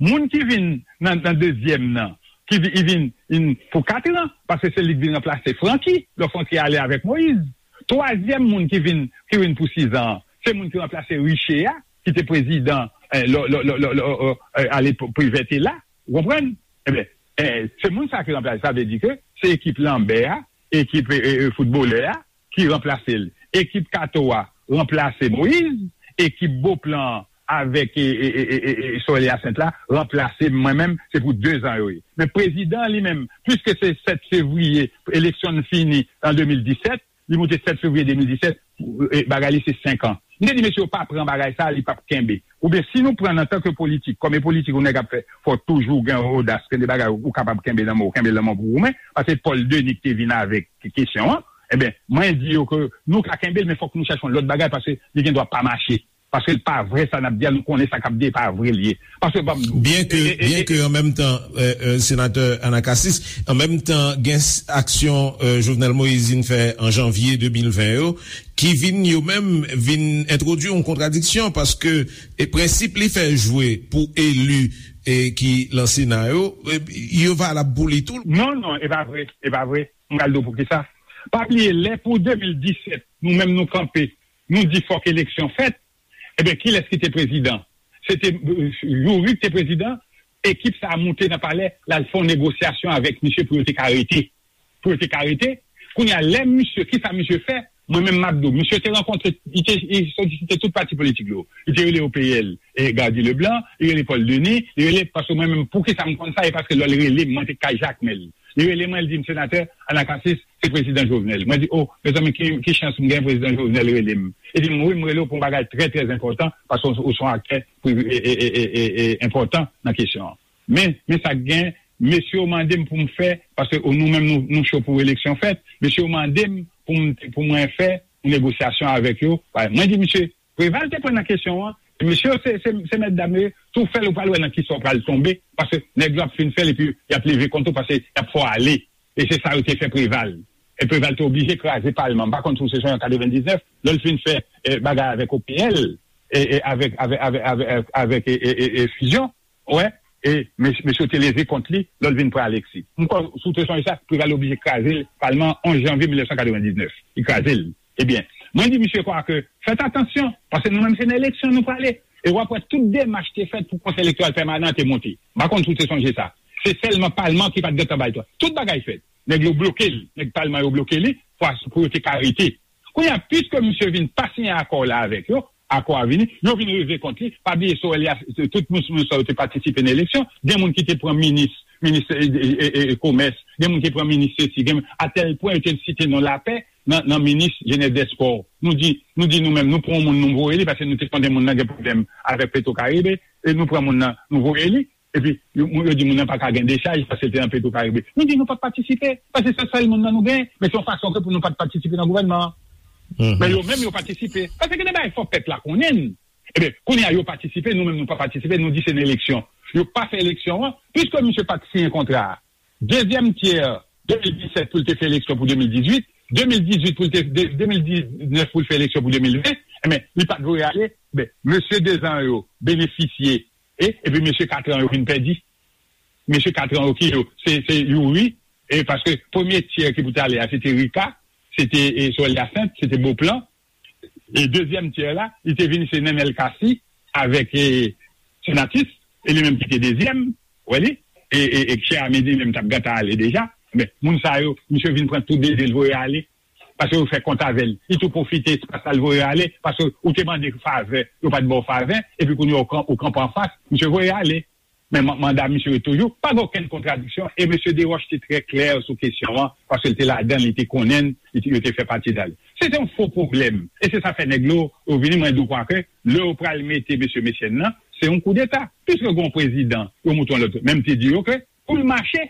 Moun ki vin nan, nan dezyèm nan, ki vi-, li vin, vin pou katran, paske se li k vin ranplase Francky, lè Francky ale avèk Moïse. Twazyèm moun ki vin, ki vin pou sizan an, se moun ki ranplase Riché a, ki te prezidan, eh, lè, lè, lè, lè, lè, eh, eh, alepòk Privè te la, ou konprann? Ebyen, eh, se moun sa ki ranplase, sa vle di ke se ekip Lanbè a, ekip, eh, eh, eh, foutbolè a, ki ranplase l. Ekip Kato a ranplase Moyiz, ekip Boplan avèk e, e, e, e, e, e Sorel Hyacinthe la ranplase mwen menm, se pou de zan yo ye. Men prezidan li menm, piske se sèt fevriye, eleksyon n fini an de mil disèt, li moute sèt fevriye de mil disèt, e, bagay li se senk an. M te di mesye yo pa pran bagay sa, li p ap kenbe. Oubyen si nou pran antanke politik, kòm e politik yon nèg ap fè, fò toujou gen odas, gen de bagay ou kapab kenbe nan men w, kenbe nan men w pou goumen, paske Paul Denis ki te vin avèk kesyon an, ebyen, mwen di yo ke nou ka kenbe l, men fòk nou chèche yon lòt bagay, paske li gen dwa pa mache. Paske l pa vre sa n ap di a, nou konnen sa k ap di a, e pa vre l ye. Paske, ban m di w, Byen ke, e, e, byen e, ke an menm tan, euh, euh, senatè Anacacis, an menm tan, gen s- aksyon euh, Jovenel Moïse vin fè an janvye de mil ven yo, ki vin yo menm vin entwodui yon kontradiksyon, paske e prensip li fè jwe pou eli e ki lan Sena yo, e, yo valab pou li tou. Non, non, e pa vre, e pa vre. M pral di w poukisa. Pa bliye, lè pou de mil disèt, nou menm nou kanpe, nou di fòk eleksyon fèt, ebyen, kilès ki te prezidan? Se te, euh, Youri ki te prezidan, ekip sa a moute nan palè, l al fè yon negosyasyon avèk misye pou yo te ka rete. Pou yo te ka rete. Kounye a, lè misye, kisa misye fè? Mwen menm m ap di w, misye te rankontre, li te, li solisite tout pati politik yo. Li te rele O P L, e Gardy Leblanc, li rele Paul Denis, li rele, paske mwen menm, poukisa m konn sa, e paske lè l rele m, mwen te kay Jakmèl. Li rele mwen, li di m, senatè Anacacis, se prezidan Jovenel. Mwen di, o, mezanmi, ki, ki chans m gen prezidan Jovenel rele m. Li di m, wi, m rele w pou yon bagay trè, trè enpòtan, paske w, w se yon aktè pri- e, e, e, e, e, e, enpòtan nan kesyon an. Men, men sa k gen, mesye yo mande m pou m fè, paske nou menm nou, nou cho pou eleksyon fèt, mesye yo mande m pou m, pou mwen fè yon negosyasyon avèk yo. Mwen di, misye, Preval te pran nan kesyon an. Mesye yo se, se, se mèt dam yo ye, si w fè l, ou pral wè nan kisa w pral tonbe, paske nèg yo ap fin fè l epi y ap leve kont ou, paske y ap fè w ale. E se sa yo te fè Preval. E Preval te oblije kraze palman. M pa konn si w se sonje an katrevendiznèf, lè l fin fè eh, bagay avèk O P L, e, e avèk, avèk, avèk, avèk, avèk e, e, e, e, Fusion, wè, e mes- mesye yo te leve kont li, lè l vin pran Alexis. M kwè, si w te sonje sa, Preval oblije kraze l, palman an onz janvye mil nèf san katrevendiznèf. Li kraze l. Ebyen, mwen di misye kwa ke, fèt atansyon, paske nou menm se nan eleksyon nou prale. E w ap wè tout demach te fèt pou Konsèy Elektoral Pèmanan an te monte. M pa konn si w te sonje sa. Se sèlman palman ki pa t gentan bay twa. Tout bagay fèt. Nèg yo bloke l. Nèg palman yo bloke li pou, pou yo te ka rete. Kounye a, piske misye vin pa siyen akò la avèk yo, akò a vini, yo vin rive kont li, pa bliye Sorel Hyacinthe, tout moun, moun sa yo te patisipe nan eleksyon, gen moun ki te pran minis, minis e, e, e, e, komès, gen moun ki pran minis sesi, gen, atèl pwen yo te site non Lapè nan, nan minis jenès dèspò. Nou di, nou di nou menm, nou pran yon moun nou voye li, paske nou te konnen moun nan gen pwoblèm avèk Petro Caribe, e nou pran moun nan, nou voye li, epi yo, yo di moun nan pa ka gen dechaj paske l te nan Petro Caribe. Nou di nou p ap patisipe, paske se sèl moun nan nou gen, men se yon fason ke pou nou pa t patisipe nan gouvènman an. Men yo menm yo patisipe, paske gen de bagay fò pèp la konnen. Ebyen, kounye a yo patisipe, nou menm nou pa patisipe, nou di se nan eleksyon. Yo pa fè eleksyon an, piske misye pa t siyen kontra a. Dezyèm tyè de mil disèt pou l te fè eleksyon pou de mil dizuit, de mil dizuit pou l te, de, de mil diznèf pou l fè eleksyon pou de mil ven, ebyen, li pa t voye ale, men mesye de zan yo benefisye, e, epi mesye kat an yo vin pèdi. Mesye kat an yo ki yo, se, se Youri, e paske premye tyè ki pou t ale a, se te Rika, se te e, Sorel Hyacinthe, se te Beauplan, e dezyèm tyè la, li te vin se Nenel Cassy avèk e, Senatus, e li menm ki te dezyèm, w wè li, e, e, e chè a midi li menm t ap gentan ale deja, men moun sa yo, misye vin pran tout de zye l voye ale, paske yo fè kont avè l, li tou pwofite espas la l voye ale, paske ou te mande favè, yo pa t ba w favè, epi kounye a ou kan- ou kanpe anfas, misye voye ale. Men man- manda misye yo toujou, pa gen okenn kontradiksyon, e mesye Desroches te trè klè sou kesyon an, paske l te ladan l, li te konnen l, li te- yo te fè pati dan l. Se te yon fo pwoblèm, e se sa fè nèg yo, yo vini, mwen di w kwa ke, lè yo pral mete mesye Mechenn nan, se yon koudeta, piske gen yon prezidan, yo moute yon lòt, men m te di yo ke, pou l mache,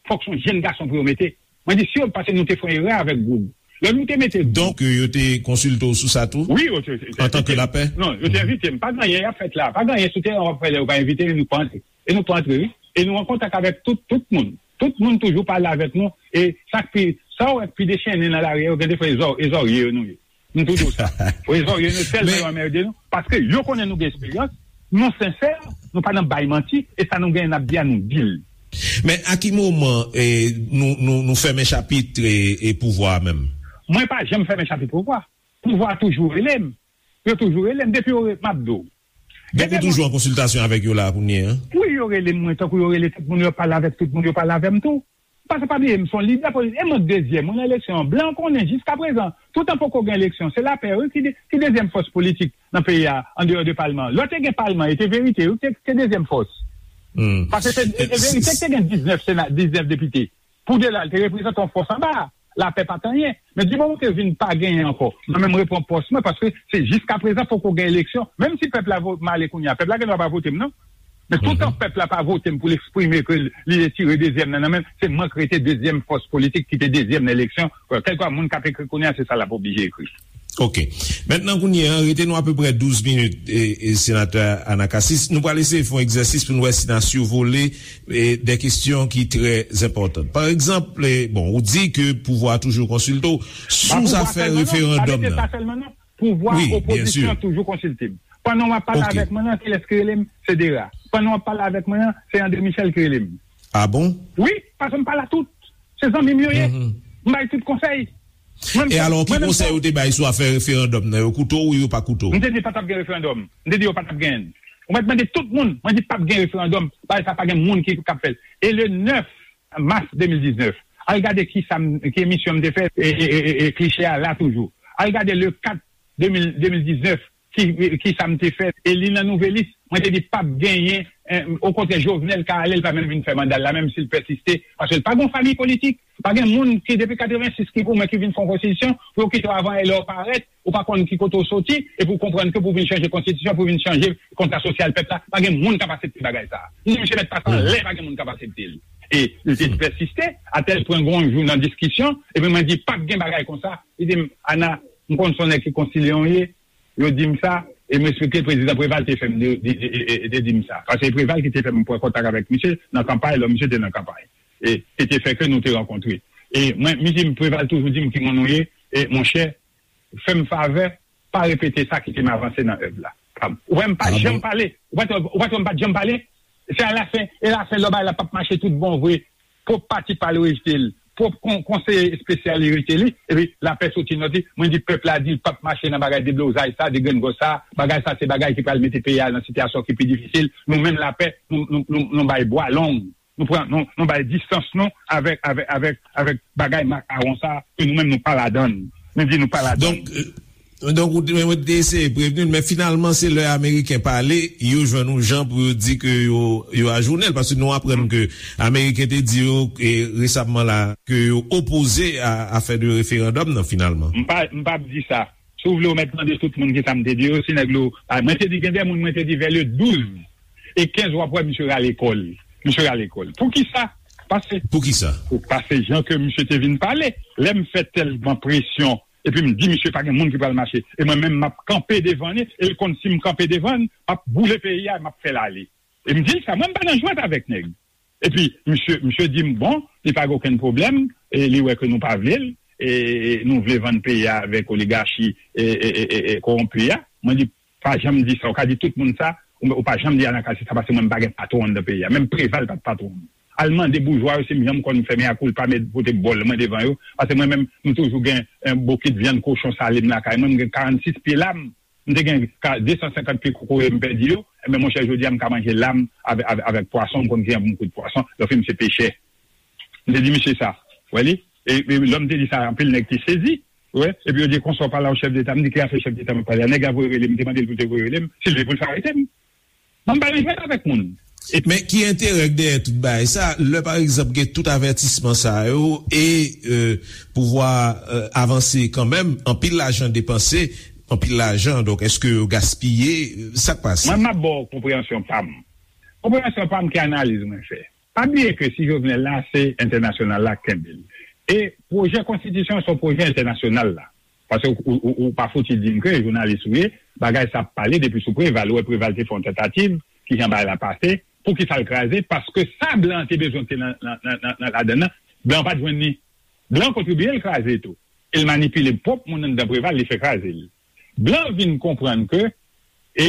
fòk se yon jenn gason pou yo mete. Mwen di, si yo, paske nou te fè yon erè avèk Goug. Lè nou te mete Goug. Donk, yo te konsilte w sou sa tou? Wi, yo te. Antanke Lapè? Non, yo te envite m. Pa gen anyen y ap fèt la. Pa gen anyen sou teren w ap fè lè yo pa envite nou, nou pa antre. E nou pa antre, wi. E nou an kontak avèk tout, tout moun. Tout moun toujou pale avèk nou. E sa k pi, sa w wè k pi dechennen nan lari a, yo gen de fwa e zò- e zòrye yo nou ye. M tou di w sa. Rezon yo nou tèlman yo anmède nou, paske yo konnen nou gen esperyans, nou sensè, nou pa nan bay manti, e sa nou genyen n ap di a nou di l. Men a ki moman e, nou, nou, nou fèmen chapit e, e pouvwa a menm? Mwen pa janm fèmen chapit pouvwa. Pouvwa a toujou rele m. Yo toujou rele m. Depi yo re- m ap di w. Donk ou toujou an konsiltasyon avèk yo la kounye a? Wi, yo rele m, mwen, tankou yo rele tout moun, yo pale avèk tout moun, yo pale avè m tou. Paske pa bliye, m se yon lidè politik. E mwen dezyèm, mwen nan eleksyon an. Blan konnen jiskaprezan, toutan poko gen eleksyon, se Lapè, wi, ki, de, ki dezyèm fòs politik nan peyi a, andeyò de palman an. Lè te gen palman, e te Verite, wi, ki te, ki te dezyèm fòs. Paske se e Verite ki te gen diznèf sena, diznèf depite. Pou de la, li te reprezante yon fòs anba a. Lapè pa t anyen. Men di moman ke vin pa genyen ankò, mwen menm repran pòs mwen, paske se jiskaprezan poko gen eleksyon. Menm si pèp la vo, m ale kounye a, pèp la gen dwa pa vote m, non. Men toutan pèp la pa vote m pou l eksprime ke li retire dezyèm nan nan men m, se mwen k rete dezyèm fòs politik ki te dezyèm nan eleksyon. Kèlkeswa moun k ap ekri kounye a, se sa l ap oblije ekri. Ok. Mentnan, kounye a, rete nou apeprè douz minit, e, e, Senatè Anacasis. Nou pral eseye fè yon egzèsis pou n wè si n a sivole e, de kesyon ki trè enpòtan. Pa egzanp, e, bon, ou di ke pouvwa a toujou konsilte w sou zafè referandòm nan. Pouvwa opozisyon an toujou konsilte m. Pandan w ap pale avèk mwen nan, kilès ki rele m? Se Dera. Pandan w ap pale avèk mwen nan, se André Michel ki rele m. Ah bon? Wi, paske m pale a tout. Se zanmi m yo ye. M bay tout konsèy. E alò, ki konsèy ou te bay sou afè referandòm nan? Yo koute w ou yo pa koute w? M te di pa t ap gen referandòm. M te di yo pa t ap gen. Ou mèt mande tout moun, mwen di p ap gen referandòm, bagay sa pa gen moun ki k ap fè l. E le nèf mas de mil diznèf, al gade ki sa m, ki emisyon m te fè, e, e, e, e, e kliche a la toujou. Al gade le kat de mil, de mil diznèf, ki, ki sa m te fè, e li nan Nouvelis, mwen te di p ap genyen, eh, okontrè, Jovenel ka ale, l pa menm vin fè manda l la, menm si l pèsiste, paske l pa gen yon fanmi politik. Pa gen moun ki depi katrevensis ki goumen ki vin fè yon konstitisyon pou yo kite w avan lè w parèt, ou pa konn ki kote w soti, epi w konprann ke pou w vin chanje konstitisyon, pou w vin chanje kontra sosyal pèp la, pa gen moun k ap aksepte bagay sa a. Ni misye mèt pase anlè, pa gen moun k ap aksepte l. E li te pèsiste, atèl pwen gen yon jou nan diskisyon, epi mwen di, p ap gen bagay konsa. Li di m, Ana, m konn se yon nèg ki konsilye w ye, yo di m sa, e m eksplike prezidan Preval te fè m de, de, de, de, de di m sa. Paske se Preval ki te fè m pran kontak avèk misye nan kanpay, lò misye te nan kanpay. E, e te fè ke nou te rankontre. E mwen, misye Preval toujou di m ki moun ou ye, e monchè, fè m favè, pa repete sa, kite m avanse nan èv la. Ou wè m pa janm pale, ou pa t wè, ou pa t wè m pa t janm pale, se alafen, e lafen lò bagay la p ap mache tout bon vre, pwòp pati pa l rejte l, pwòp kon, konseye espesyal li rejte li, epi Lapè soti nòt li, mwen di pèp la di l p ap mache nan bagay deblozay sa, degrengòs sa, bagay sa se bagay ki pral mete peyi a nan sitiyasyon ki pi difisil, nou menm Lapè, nou, nou, nou, nou bay bwa long, nou pran, nou, nou bay distans nou avèk, avèk, avèk, avèk bagay makawon sa, ke nou menm nou pa ladann, nou di nou pa ladann. Donk, Donk, ou te, mwen te eseye prevni l, men finalman, se lè Ameriken pale, yo jwenn yon jan pou yo di ke yo, yo ajounen l, paske nou aprann ke Ameriken te di yo, e, resamman la, ke yo opoze a afè de referandòm nan, finalman. M pa, m p ap di sa. Si w vle, w mèt mande tout moun ki sa m te di yo, si nèg lo, a, mwen te di, gen de moun, mwen te di, vè le douz e kenz, w ap wè misye rale kò l. Misye rale kò l. Poukisa? Paske, poukisa? Paske jan ke misye te vin pale, lè m fè tèlman presyon, epi m di misye pa gen moun ki pral mache. E mwen menm m ap kanpe devan li, e l konn si m kanpe devan l, m ap boule peyi a, m ap fè l ale. E m di l sa, mwen m pa nan jwèt avèk nèg. Epi misye, misye di m bon, li pa gen okenn pwoblèm, e li wè ke nou pa vle l, e nou vle vann peyi a avèk oligachi e, e, e, e, e kowonpi a. Mwen di pa janm di sa, ou ka di tout moun sa, ou, ou pa janm di Anacasis sa, paske mwen m pa gen patwon anndan peyi a. Menm Preval pa t patwon m. Al mande boujwa yo si m janm konn fè mea culpa, met pote bòl mwen devan yo. Paske mwen menm, m toujou gen, eh, bokit vyann kochon sale m lakay mwen. M gen karannsis pye lam. M te gen ka, de san senkant pye kokoye m pèdi yo. Enben, monchè, jodi a, m ka manje lam avè, avè, avèk pwason. M konn ki jan pou m kwit pwason. Lòfi m se pechè. M te di misye sa. Wè li? E, e lè m te di sa, anpil nèg te sezi. Wè, epi yo di konsa w pale a yon chèf deta, m di ki afè chèf deta m ap pale a, nèg la voye rele m, m te mande l pou l te voye rele m, si l vle pou l fè arete m. Mwen m pa nan jwèt avèk moun. E men ki enterè k dèyè tout bagay sa, lè pa egzanp gen tout avètisman sa yo e, e, pouvwa, e, avanse kanmenm, anpil lajan depanse, anpil lajan, donk èske yo gaspiye, sa k pase? Mwen m ap ba w konpreyansyon pa m. Konpreyansyon pa m ki analiz mwen fè. Pa bliye ke si Jovenel la, se entènasyonal la k kenbe l. E pwojè konstitisyon se yon pwojè entènasyonal la. Paske ou, ou, ou, ou pa fouti di m ke jounalis ou ye, bagay sa ap pale depi sou Preval. Ou wè Preval te fè yon tantativ, kijan bagay la pase, poukisa l kraze? Paske sa blan an te bezwen te nan, nan, nan, nan, nan ladann nan, blan an pa t jwenn li. Blan an kontribye l kraze tou. E l manipile pwòp moun anndan Preval, li fè kraze l. Blan an vin konprann ke, e,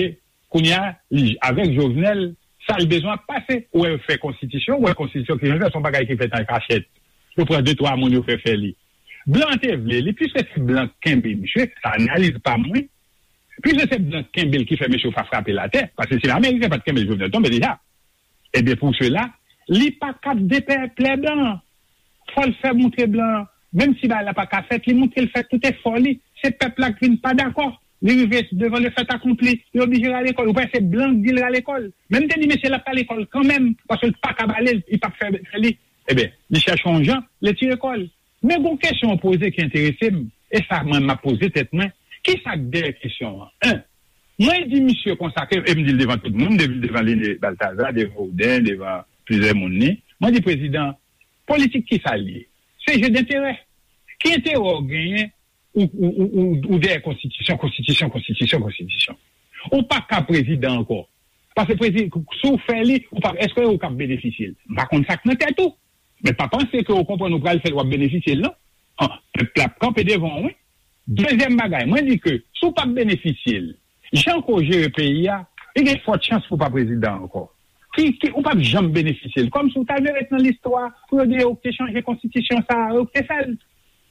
Kounye a, li, avèk Jovenel, sa l bezwen ap pase. Ou wè yo fè konstitisyon, ou wè konstitisyon ki jan l fè, se yon bagay ki fèt an kachèt. Yo pran de, twa moun, yo fè fè li. Blan te vle li, piske se blan k kenbe misye, sa analiz pa mwen. Piske se blan k kenbe l ki fè mesye yo pa frape l atè, paske si Ameriken pa t kenbe l, Jovenel tonbe deja. Ebyen, pou sela, li pa ka depèplè blan an. Fò l fè montre blan an, menm si bagay la pa ka fèt, li montre l fè tout efò li. Se pèp la k vin pa dakò. Li rive devan le fait accompli, li oblije rale kò l. Ou kwè se blan k di l rale kò l? Men m te di mesye l ap rale kò l kanmenm, paske l pa ka bale l, li p ap fè, fè li. Ebyen, li chèche yon jan, li tire kò l. Men gon kesyon w poze ki enterese m, e sa mwen m ap poze tèt mwen, kisa k dèyè kesyon an? En, mwen di misye konsa ke, e m di l devan tout moun, m di l devan Lene Balthazar, devan Ouden, devan plizyè moun ni, mwen di prezidan, politik kisa l ye? Se je denterè. Ki enterè w genyen ou, ou, ou, ou, ou dèyè konstitisyon, konstitisyon, konstitisyon, konstitisyon? Ou pa ka prezidan ankò. Paske prezi, si w fè li, ou pa, èske ou k ap benefisye l? M pa konn sa k nan tèt ou. Men pa panse ke ou konprann ou pral fè l, w ap benefisye l, non. An, pèp la ap kanpe devan w, wi. Dezyèm bagay, mwen di ke si w p ap benefisye l, jan ke w jere peyi a, li gen fòt chans pou w pa prezidan ankò. Ki, ki, ou p ap janm benefisye l. Kòmsi w ta dwe ret nan listwa pou yo di yo te chanje konstitisyon sa a, yo te fè l.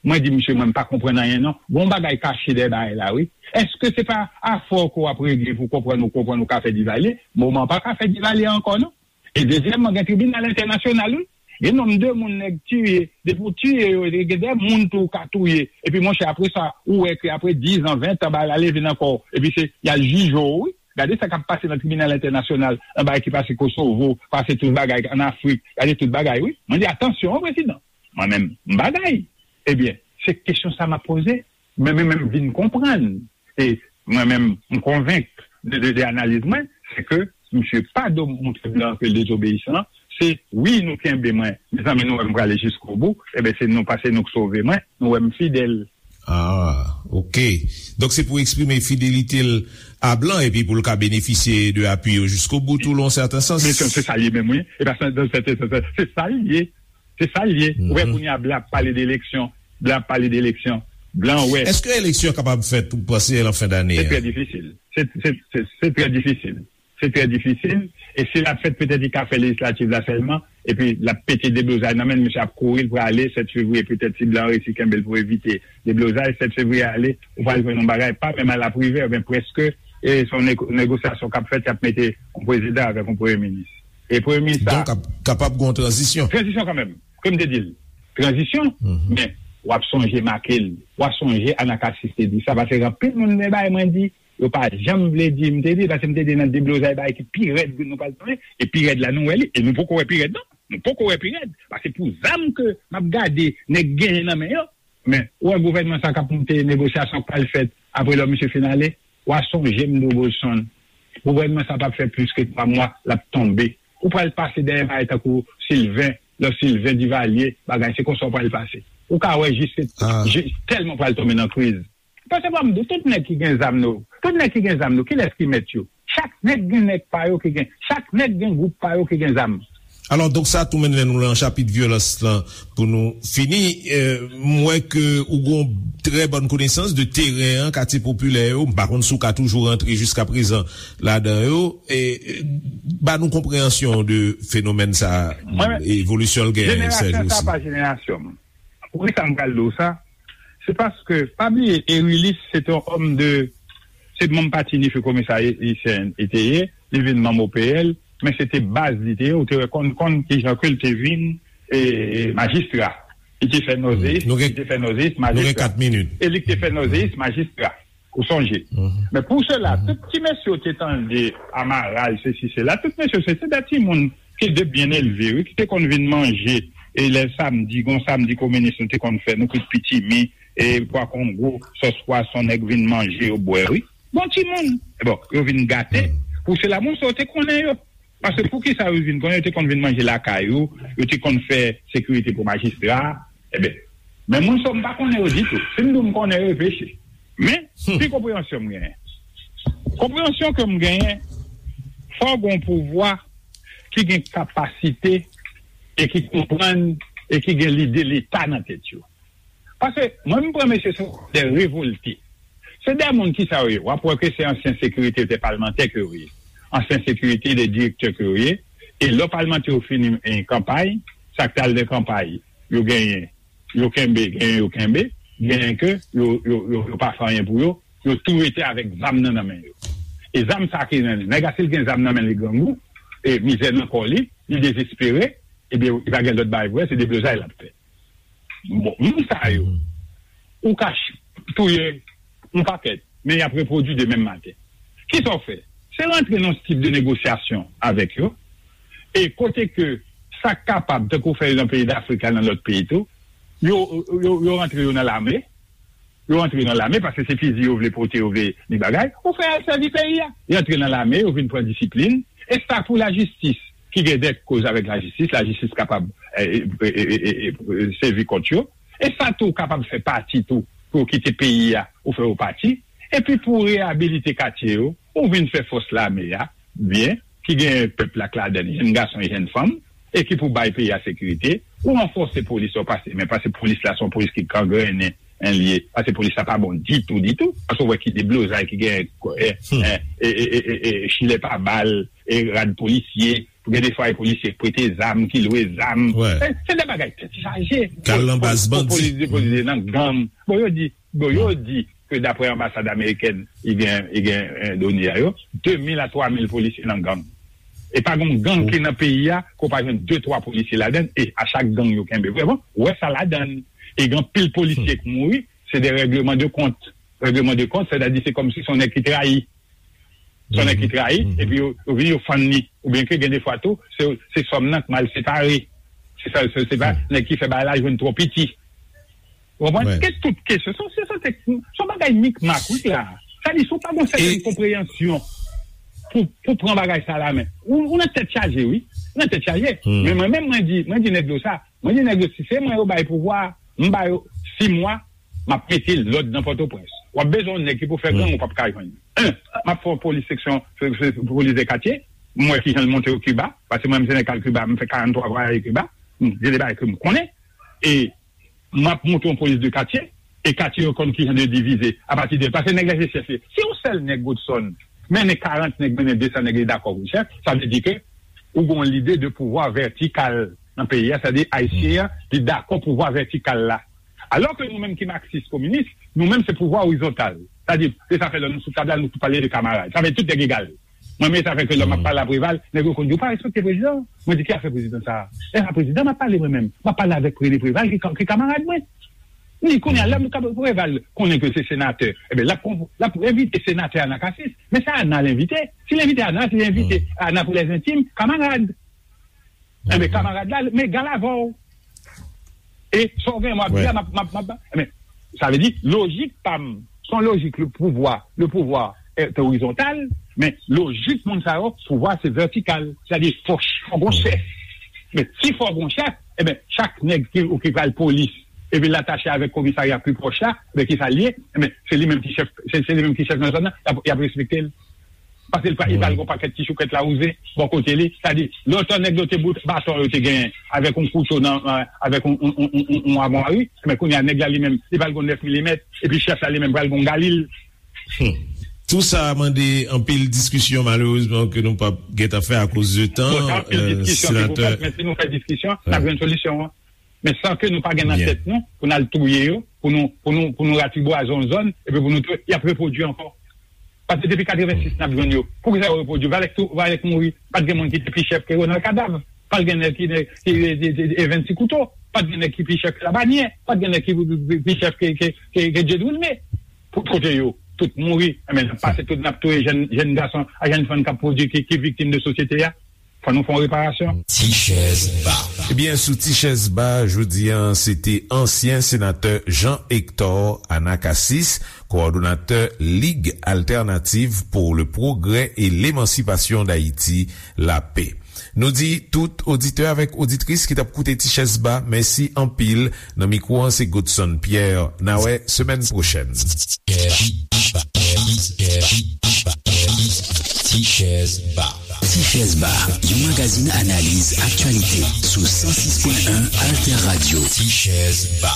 Mwen di, misye, mwen m pa konprann anyen non. Gon bagay kache dèyè bagay la, wi. Èske se pa afè w ke w ap regle pou w konprann, ou konprann ou ka fè Divalye? Moman pa ka fè Divalye ankò, non. E dezyèmman, gen tribinal entènasyonal, wi. Gen nonm de moun nèg tiye, depi w tiye yo, gen de moun tou w ka touye. Epi, monchè, apre sa, ou wè ke apre diz an, ven an, bagay la leve nan kò w. Epi se, y al jije w, wi. Gade sa k ap pase nan tribinal entènasyonal, nan bagay ki pase Kosovo, pase tout bagay ann Afrik. Gade tout bagay, wi. Mwen di, atansyon, wi, prezidan. Mwen menm, m bagay. Ebyen, se kesyon sa m ap poze. Men, men, men m vin konprann. E mwen menm, m konvenk de, de, de analiz mwen, se ke misye pa do montre blan ke l dezobeyisan. Se wi, nou kenbe mwen. Mezanmi, nou wè m prale jiskobou. Ebyen, se nou, pa se nou k sove mwen. Nou wè m fidèl. Ah, ok. Donk, se pou eksprime fidelite l a blan epi pou l ka benefisye de apui yo jiskobou, tou, lan sèten sans. Men se, se sa l ye menm, wi. E pa se, se, se, se, se, se sa l ye. Se sa l ye. Ou wè, kounye a, blan ap pale de eleksyon. Blan ap pale de eleksyon. Blan wè. Èske eleksyon kapab fèt, ou panse, lan fen dane a? Se trè difisil. Se, se, se, se trè difisil. Se trè difisil. E si l ap fèt, petèt li ka fè lejislativ la sèlman. Epi l ap pete deblozay nan men l, misye ap kouri, l prale, sèt fevriye, petèt si blan resi kenbe l pou evite deblozay, sèt fevriye ale, ou pral jwenn yon bagay, pa menm al ap rive, men prèske, e se yon nego-, negosyasyon k ap fèt, y ap mete yon prezidan avèk yon premye minis. E premye minis sa. Donk, ap, kapab gen yon tranzisyon. Tranzisyon kanmenm. Kòm m te di l, tranzisyon, men w ap sonje make l, w ap sonje Anacassis te di sa, paske anpil moun te bay mwen di, yo pa janm vle di, m te di, paske m te di nan deblozay bagay ki pi rèd nou pral tounen, e pi rèd la nou wè li, e nou poko wè pi rèd non, nou poko wè pi rèd, paske pou zam ke m ap gade nèg genyen nan men yo, men ou wè gouvènman sa k ap monte, negosyasyon k pral fèt, apre lò misye fin ale, w a sonje m di w Bolson, gouvènman sa p ap fè plis ke twa mwa, l ap tonbe, ou pral pase dèyè bagay tankou Sylvain, lò Sylvain Divalye, bagay, se konsa w pral pase. Ou ka wè jis, jis tèlman w pral tonbe nan kriz. Paske ban m di w, tout nèg ki gen zam nou, tout nèg ki gen zam nou, kilès ki mèt yo? Chak nèg gen nèg pa yo ki gen, chak nèg gen gwoup pa yo ki gen zam. Alò, donk sa tou mennen nou lan chapit vyolans lan pou nou fini. Eh, m wè ke ou gon trè bòn konesans de teren an, katye popilè yo. M pa konn si w ka toujou rantre jiskaprezan ladan yo. E, eh, ba nou konpreyansyon de fenomèn sa, evolisyon l genyen, Serge, osi. Jenerasyon sa pa jenerasyon m. Poukisa m pral di w sa? Se paske, pa bliye, Erilis se te yon òm de, se manm pati Nifi Komesa Ayisyen li te ye, li vin manm O P L, men se te baz li te ye, ou te wè konn, konn kijan ke l te vin, e, e, majistra. Li te fè Nòzeyis, li te fè Nòzeyis majistra. E li te fè Nòzeyis majistra. Ou sonje. Men pou sela, tout ti mesye w te tande Amaral, sesi, sela, tout mesye, se, se de timoun ki te byen elve, wi, ki te konn vin manje, e lè samdi, gon samdi kominis nou te konn fè, nou kwit pitimi, e pwa kongo, sòs pwason, nèg vin manje, yo bwè, wi. Bon timoun. Bon, yo vin gate. Pou sela, moun sa yo te konnen yo. Paske poukisa yo vin konnen, yo te konn vin manje lakay ou, yo te konn fè sekirite pou majistra. Ebyen, men moun sa yo, m pa konnen yo ditou. Si m di w m konnen yo, e peche. Men, pi konpreyansyon m genyen. Konpreyansyon ke m genyen, fò w gen yon pouvwa ki gen kapasite e ki konprann e ki gen lide Leta nan tèt yo. Paske mwen, m pran mesye se de revolte. Se de moun ki sa yo ye. W ap wè ke se ansyen sekirite, de palmantè ke yo ye. Ansyen sekirite, de direktè ke yo ye. E lè palmantè yo fini, eh, kanpay, sa k t al nan kanpay, yo genyen, yo kenbe, genyen yo kenbe, genyen ke yo, yo, yo, yo pa fè anyen pou yo, yo tou rete avèk zam nan, nan men yo. E zam sa ki nan li. Nèg la, si l gen zam nan men li, grangou, e mizè nan kò li, li dezespere, ebyen, li pa gen lòt bagay pou fè, se deblozay l ap fè. Bon, moun sa yo, ou ka ch- touye yon pakèt, men y ap repwodui de menm maten. Kisa w fè? Se rantre nan yon tip de negosyasyon avèk yo, e kote ke sa k kapab, tankou w fè nan peyi Dafrik la, nan lòt peyi tou, yo, yo, yo rantre yo nan lame, yo rantre nan lame, paske se fizi yo vle pote, yo vle ni bagay, ou fè al sèvi peyi a. Yo antre nan lame, yo vin pran disiplin, e sa pou lajistis, ki gen dèt koz avèk lajistis, lajistis kapab, e, e, sèvi kont yo. E sa tou kapab fè pati tou, pou yo kite peyi a, ou fè yo pati. Epi pou reyabilite katye yo, ou vin fè fòs lame a, byen, ki gen pèp la k ladan l, jenn gason e jenn fanm, e ki pou bay peyi a sekirite, ou ranfòse polis la, ou pase, men pase polis la, se yon polis ki gangrennen, en, li ye, pase polis la pa bon ditou, ditou, paske ou wè ki deblozay ki gen, e, e, e, e, e, e, chilè pa bal, e rad polisye, gen de fwa e polisye k prete zam, ki lwe zam. Se, se de bagay tèt chaje. Kal nan baz bandi. Polis depoze nan gang. Bon, yo di, bon, yo di ke daprè anbasad amerikèn, i gen, i gen, eh, done a yo, de mil a twa mil polisye nan gang. E pa gen gang ki nan peyi a, ke w pa jwenn de, twa polisye ladan, e a chak gang yo kenbe. Vrèman, ou wè sa ladan. E gen anpil polisye k mouri, se de règleman de kont. Règleman de kont, sètadi se kòmsi se yon nèg ki trayi. Se yon nèg ki trayi, epi yo, yo vini, yo fann li. Oubyen ke gen de fwa tou, se, se sòm nan k mal separe. Se sa, se, se pa nèg ki fè bagay la jwenn twò piti. Ou konprann? Ke tout kesyon, se, se, se, se yon bagay mikmak, wi, la. Sa di, si w pa gen yon sètèn konpreyansyon pou, pou pran bagay sa la, men, ou, ou nan tèt chaje, wi. Ou nan tèt chaje. Men mwen menm, mwen di, mwen di nèg yo sa. Mwen di nèg yo, si se mwen yo bay pouvwa, m ba yo sis mwa, m ap mete lòd nan Pòtoprens. W ap bezwen yon nèg ki pou fè gang, ou p ap ka jwenn. En, m ap fè yon polis seksyon, se, se, polis de katye. M wè ki jan l monte o Kiba, paske mwen menm se nèg k al Kiba, m fè karanntwa vwayaj Kiba. M, gen de bagay ke m konnen. E m ap monte yon polis de katye, e katye yo konn ki jan de divize apati de, paske nèg la se chèf li. Si yon sèl nèg Godson mennen karant nèg, mennen de san nèg, li dakò pou l chèf, sa vle di ke ou gen yon lide de pouvwa vètikal nan peyi a, sètadi Ayisyen an, li dakò pouvwa vètikal la. Alò ke nou menm ki maksis kominis, nou menm se pouvwa orizontal. Sètadi, se sa fè lè nou sou tab la, nou tou pale de kamarad. Sa fè tout nèg egal. Mwen menm, sa fè ke lè m ap pale a Preval, nèg yo konn di, "Ou pa respekte prezidan." Mwen di, "Ki afè prezidan sa a?" E a prezidan m ap pale mwen menm. M ap pale avèk René Preval, ki, ki kamarad mwen. Li konnen, lè m ka Preval konnen ke se senatè, ebyen, l ap, l ap envite senatè Anacasis. Men se Ana l envite. Si l envite Ana, si l envite Ana pou lèzentim, kamarad. Enben, kamarad la, m egal avè w. E sa w gen, m ap di a, m ap, m ap, m ap, enben, sa vle di, lojik pa m, se yon lojik le pouvwa, le pouvwa est horizontal, men lojik moun sa yo, pouvwa se vètikal. Sètadi, fò, fò gon chèf. Men si fò gon chèf, enben, chak nèg ki, ki pral polis, epi l atache avèk komisarya pi pwòch la, enben, ki sa l ye? Enben, se li menm ki chèf, se, se li menm ki chèf nan zòn nan, y ap, y ap respekte l. Paske li pral gen yon pakèt ti choukèt lawouze bò kote li. Sètadi, lontan nèg yo te bout baton yo te genyen avèk yon kouto nan, avèk yon, yon, yon, yon, yon amwari, men kounye a nèg la li menm, li pral gen yon nèf milimèt, epi chèf la li menm pral gen yon galil. Tou sa mande anpil diskisyon, malerezman, ke nou p ap gentan fè akoz de tan. Bon, sa anpil diskisyon ki pou fèt, men si nou fè diskisyon, n ap jwenn solisyon an. Men san ke nou pa gen nan tèt nou, pou n al touye yo, pou nou, pou nou, pou nou ratibwaze yon zòn, epi pou nou touye, y ap repwodui ankò. Paske depi katrevensis, n ap jwenn yo. Poukisa yo repwodui? Valèk tou, Valèk mouri, pa t gen moun ki te pi chèf ke Ronald Kadav. Pa t gen nèg ki, ki, ki, ki, ki Evens Ti Kouto. Pa t gen nèg ki pi chèf ke Labanyè. Pa t gen nèg ki pi, pi, pi chèf ke, ke, ke, ke Dye Drilme. Pou kote yo, tout mouri. Enben, n ap pase tout, n ap touye jèn, jèn gason ak jèn fanm k ap pwodui, ki, ki viktim de sosyete a. Fò nou fè yon reparasyon. Ti chèz ba. Ebyen, sou Ti chèz ba, jodi a, se te ansyen senatè Jean Hector Anacasis, kowòdonatè Ligue Alternative pour le Progrès et l'Émancipation d'Haïti, la P. Nou di tout oditè avèk oditris ki t ap koute Ti chèz ba, mèsi anpil. Nan mikwo an, se Godson Pierre. N a wè semèn pwochèn. Ti chèz ba. Ti chèz ba, yon magazin analiz aktyalite sou san sis pwen en Alter Radio. Ti chèz ba.